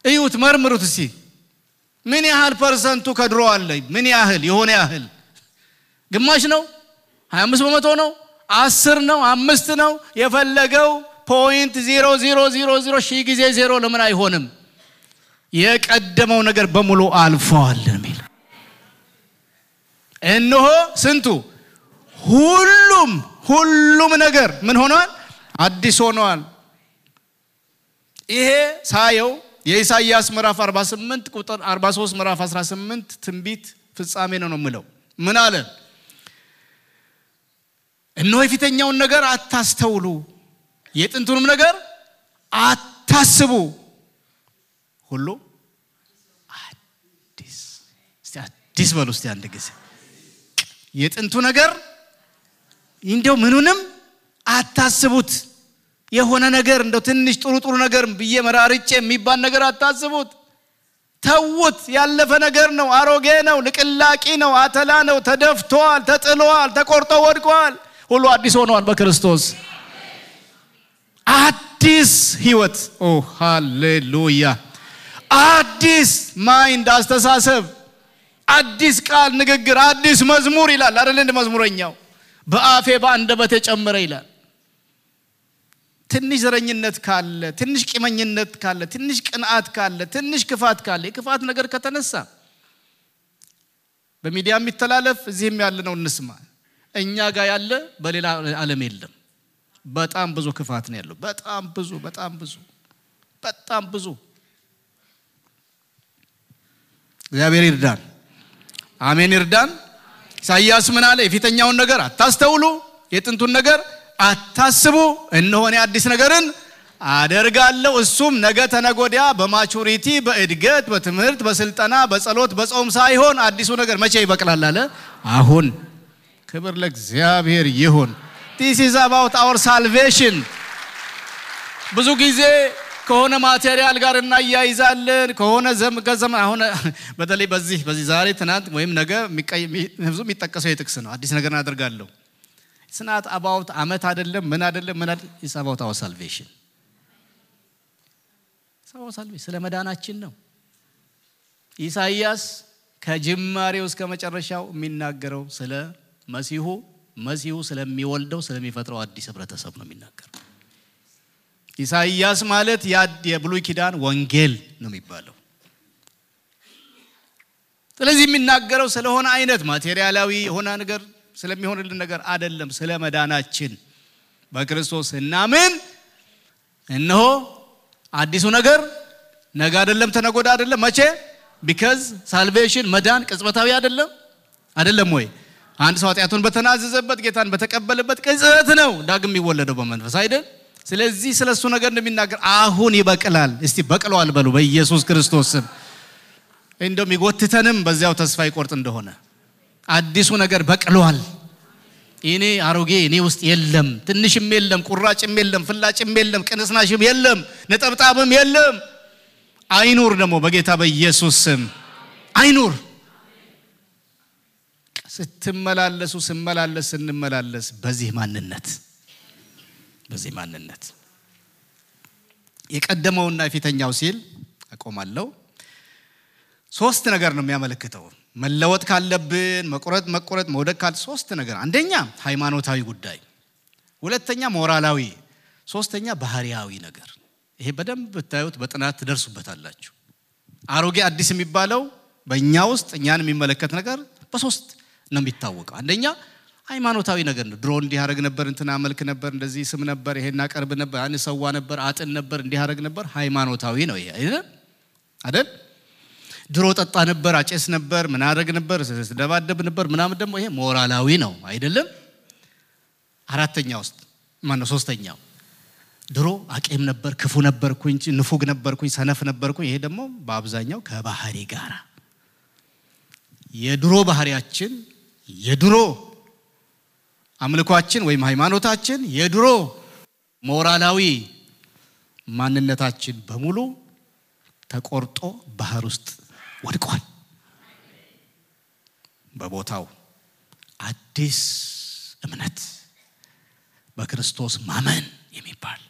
እዩት መርምሩት እስቲ ምን ያህል ፐርሰንቱ ከድሮ አለ? ምን ያህል የሆነ ያህል ግማሽ ነው? 25% ነው? 10 ነው? 5 ነው? የፈለገው 0.0000 ሺህ ጊዜ 0 ለምን አይሆንም? የቀደመው ነገር በሙሉ አልፏል የሚል እነሆ ስንቱ ሁሉም ነገር ምን ሆኗል? አዲስ ሆኗል። ይሄ ሳየው የኢሳይያስ ምዕራፍ 48 ቁጥር 43 ምዕራፍ 18 ትንቢት ፍጻሜ ነው የምለው። ምን አለ? እነሆ የፊተኛውን ነገር አታስተውሉ፣ የጥንቱንም ነገር አታስቡ፣ ሁሉ አዲስ በሉ እስቲ አንድ ጊዜ። የጥንቱ ነገር እንደው ምኑንም አታስቡት። የሆነ ነገር እንደው ትንሽ ጥሩ ነገር በየመራርጬ የሚባል ነገር አታስቡት። ተውት። ያለፈ ነገር ነው፣ አሮጌ ነው፣ ልቅላቂ ነው፣ አተላ ነው፣ ተደፍቷል፣ ተጥሏል፣ ተቆርጦ ወድቋል። ሁሉ አዲስ ሆኗል በክርስቶስ። አዲስ ህይወት ኦ ሃሌሉያ። አዲስ ማይንድ አስተሳሰብ፣ አዲስ ቃል ንግግር፣ አዲስ መዝሙር ይላል አይደል? እንደ መዝሙረኛው በአፌ በአንደበቴ ጨመረ ይላል። ትንሽ ዘረኝነት ካለ፣ ትንሽ ቂመኝነት ካለ፣ ትንሽ ቅንዓት ካለ፣ ትንሽ ክፋት ካለ፣ የክፋት ነገር ከተነሳ በሚዲያ የሚተላለፍ እዚህም ያለ ነው እንስማ እኛ ጋር ያለ በሌላ ዓለም የለም በጣም ብዙ ክፋት ነው ያለው በጣም ብዙ እግዚአብሔር ይርዳን አሜን ይርዳን ኢሳይያስ ምን አለ የፊተኛውን ነገር አታስተውሉ የጥንቱን ነገር አታስቡ እነሆ እኔ አዲስ ነገርን አደርጋለሁ እሱም ነገ ተነጎዲያ በማቹሪቲ በእድገት በትምህርት በስልጣና በጸሎት በጾም ሳይሆን አዲሱ ነገር መቼ ይበቅላል አለ አሁን ክብር ለእግዚአብሔር ይሁን this is about our salvation ብዙ ጊዜ ከሆነ ማቴሪያል ጋር እናያይዛለን ከሆነ ዘመን አሁን በተለይ በዚህ ዛሬ ትናንት ወይም ነገ የሚጠቀሰው የጥቅስ ነው አዲስ ነገር እናደርጋለሁ it's not about አመት አይደለም ምን አይደለም it's about our salvation ስለ መዳናችን ነው ኢሳይያስ ከጅማሬው እስከ መጨረሻው የሚናገረው ስለ መሲሁ ስለሚወልደው ስለሚፈጥረው አዲስ ህብረተሰብ ነው የሚናገረው ኢሳይያስ ማለት የብሉይ ኪዳን ወንጌል ነው የሚባለው ስለዚህ የሚናገረው ስለሆነ አይነት ማቴሪያላዊ የሆነ ነገር ስለሚሆንልን ነገር አይደለም ስለ መዳናችን በክርስቶስ እናምን እነሆ አዲሱ ነገር ነገ አይደለም ተነጎዳ አይደለም መቼ because salvation መዳን ቅጽበታዊ አይደለም ወይ አንድ ሰው ኃጢአቱን በተናዘዘበት ጌታን በተቀበለበት ቅጽበት ነው ዳግም የሚወለደው በመንፈስ አይደል ስለዚህ ስለሱ ነገር እንደሚናገር አሁን ይበቅላል እስቲ በቅሏል በሉ በኢየሱስ ክርስቶስ ስም እንደም ይጎትተንም በዚያው ተስፋ ይቆርጥ እንደሆነ አዲሱ ነገር በቅሏል እኔ አሮጌ እኔ ውስጥ የለም ትንሽም የለም ቁራጭም የለም ፍላጭም የለም ቅንስናሽም የለም ነጠብጣብም የለም አይኑር ደግሞ በጌታ በኢየሱስ ስም አይኑር ስንመላለስ በዚህ ማንነት የቀደመውና የፊተኛው ሲል አቆማለሁ ሶስት ነገር ነው የሚያመለክተው መለወጥ ካለብን መቆረጥ መውደቅ ካለ ሶስት ነገር አንደኛ ሃይማኖታዊ ጉዳይ ሁለተኛ ሞራላዊ ሶስተኛ ባህሪያዊ ነገር ይሄ በደንብ ብታዩት በጥናት ትደርሱበታላችሁ አሮጌ አዲስ የሚባለው በእኛ ውስጥ እኛን የሚመለከት ነገር በሶስት ነው የሚታወቀው አንደኛ ሃይማኖታዊ ነገር ነው ድሮ እንዲህ ያረግ ነበር እንትና መልክ ነበር እንደዚህ ስም ነበር ይሄና ቀርብ ነበር አንሰዋ ነበር አጥን ነበር እንዲህ ያረግ ነበር ሃይማኖታዊ ነው ይሄ አይደል ድሮ ጠጣ ነበር አጨስ ነበር ምን አረግ ነበር ደባደብ ነበር ምናምን ደግሞ ይሄ ሞራላዊ ነው አይደለም አራተኛው ውስጥ ማነው ሶስተኛው ድሮ አቄም ነበር ክፉ ነበርኩኝ ንፉግ ነበርኩኝ ሰነፍ ነበርኩኝ ይሄ ደግሞ በአብዛኛው ከባህሪ ጋራ የድሮ ባህሪያችን የድሮ አምልኳችን ወይም ሃይማኖታችን የድሮ ሞራላዊ ማንነታችን በሙሉ ተቆርጦ ባህር ውስጥ ወድቋል በቦታው አዲስ እምነት በክርስቶስ ማመን የሚባል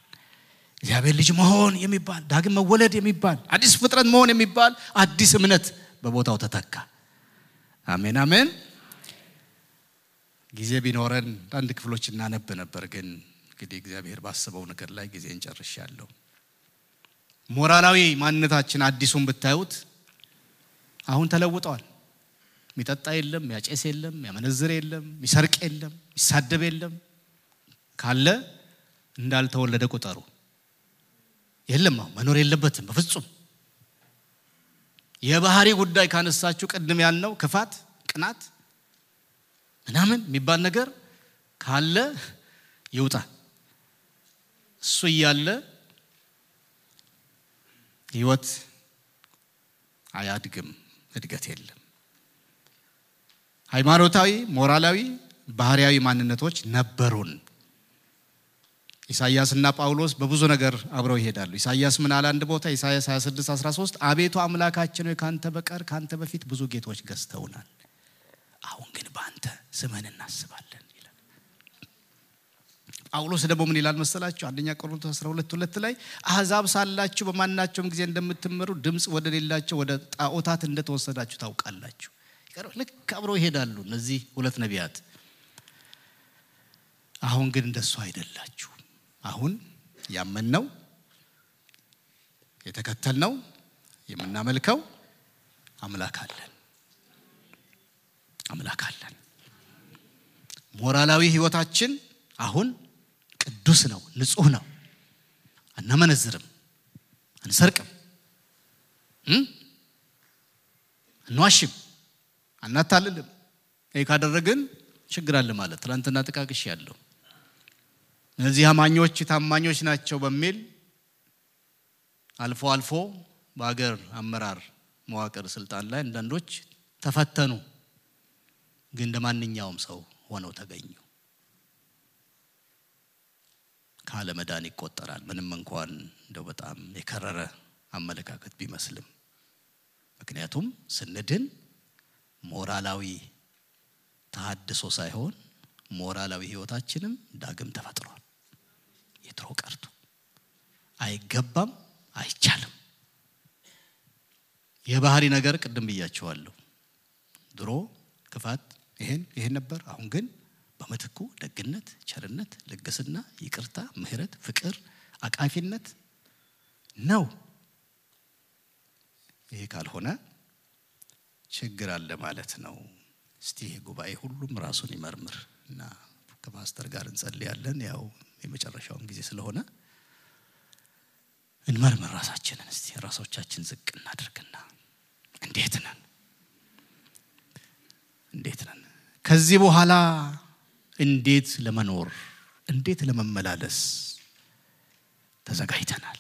እግዚአብሔር ልጅ መሆን የሚባል ዳግም መወለድ የሚባል አዲስ ፍጥረት መሆን የሚባል አዲስ እምነት በቦታው ተተካ አሜን አሜን ጊዜ ቢኖረን አንድ ክፍሎች እናነብ ነበር ግን እንግዲህ እግዚአብሔር ባሰበው ነገር ላይ ጊዜ እንጨርሻለሁ ሞራላዊ ማንነታችን አዲሱን ብታዩት አሁን ተለውጧል ሚጠጣ የለም ያጨስ የለም ያመነዝር የለም ሚሰርቅ የለም ይሳደብ የለም ካለ እንዳልተወለደ ቁጠሩ የለም መኖር የለበትም በፍጹም የባህሪ ጉዳይ ካነሳችሁ ቀድም ያልነው ክፋት ቅናት ምናምን የሚባል ነገር ካለ ይውጣ እሱ ያለ ህይወት አያድግም እድገት የለም ሃይማኖታዊ ሞራላዊ ባህሪያዊ ማንነቶች ነበሩን ኢሳይያስና ጳውሎስ በብዙ ነገር አብረው ይሄዳሉ ኢሳይያስ ምን አለ አንድ ቦታ ኢሳይያስ 26:13 አቤቱ አምላካችን ሆይ ካንተ በቀር ካንተ በፊት ብዙ ጌቶች ገዝተውናል አሁን ግን ባንተ ስምህን እናስባለን ይላል ጳውሎስ ደግሞ ምን ይላል መሰላችሁ አንደኛ ቆሮንቶስ 12:2 ላይ አሕዛብ ሳላችሁ በማናቸውም ጊዜ እንደምትመሩ ድምጽ ወደሌላቸው ወደ ጣዖታት እንደተወሰዳችሁ ታውቃላችሁ ልክ አብረው ይሄዳሉ እነዚህ ሁለት ነቢያት አሁን ግን እንደሱ አይደላችሁ አሁን ያመንነው የተከተልነው የምናመልከው አምላክ አለን አምላክ አለን። ሞራላዊ ህይወታችን አሁን ቅዱስ ነው፣ ንጹህ ነው። አናመነዝርም፣ አንሰርቅም፣ አንዋሽም፣ አናታልልም። ይሄ ካደረግን ችግር አለ ማለት ትላንትና ተቃቅሽ ያለው እነዚህ አማኞች ታማኞች ናቸው በሚል አልፎ አልፎ በአገር አመራር መዋቅር ስልጣን ላይ አንዳንዶች ተፈተኑ፣ ግን እንደማንኛውም ሰው ሆነው ተገኙ። ካለ መዳን ይቆጠራል። ምንም እንኳን እንደው በጣም የከረረ አመለካከት ቢመስልም ምክንያቱም ስንድን ሞራላዊ ተሐድሶ ሳይሆን ሞራላዊ ህይወታችንም ዳግም ተፈጥሯል። የትሮ ቀርቶ አይገባም፣ አይቻልም። የባህሪ ነገር ቅድም ብያቸዋለሁ። ድሮ ክፋት ይሄን ነበር። አሁን ግን በመትኩ ደግነት፣ ቸርነት፣ ልግስና፣ ይቅርታ፣ ምህረት፣ ፍቅር፣ አቃፊነት ነው። ይሄ ካልሆነ ችግር አለ ማለት ነው። እስቲ ጉባኤ ሁሉም ራሱን ይመርምር እና ከፓስተር ጋር እንጸልያለን። ያው የመጨረሻው ጊዜ ስለሆነ እንመርምር ራሳችንን። እስቲ ራሶቻችን ዝቅ እናድርግና እንዴት ነን ከዚህ በኋላ እንዴት ለመኖር እንዴት ለመመላለስ ተዘጋጅተናል?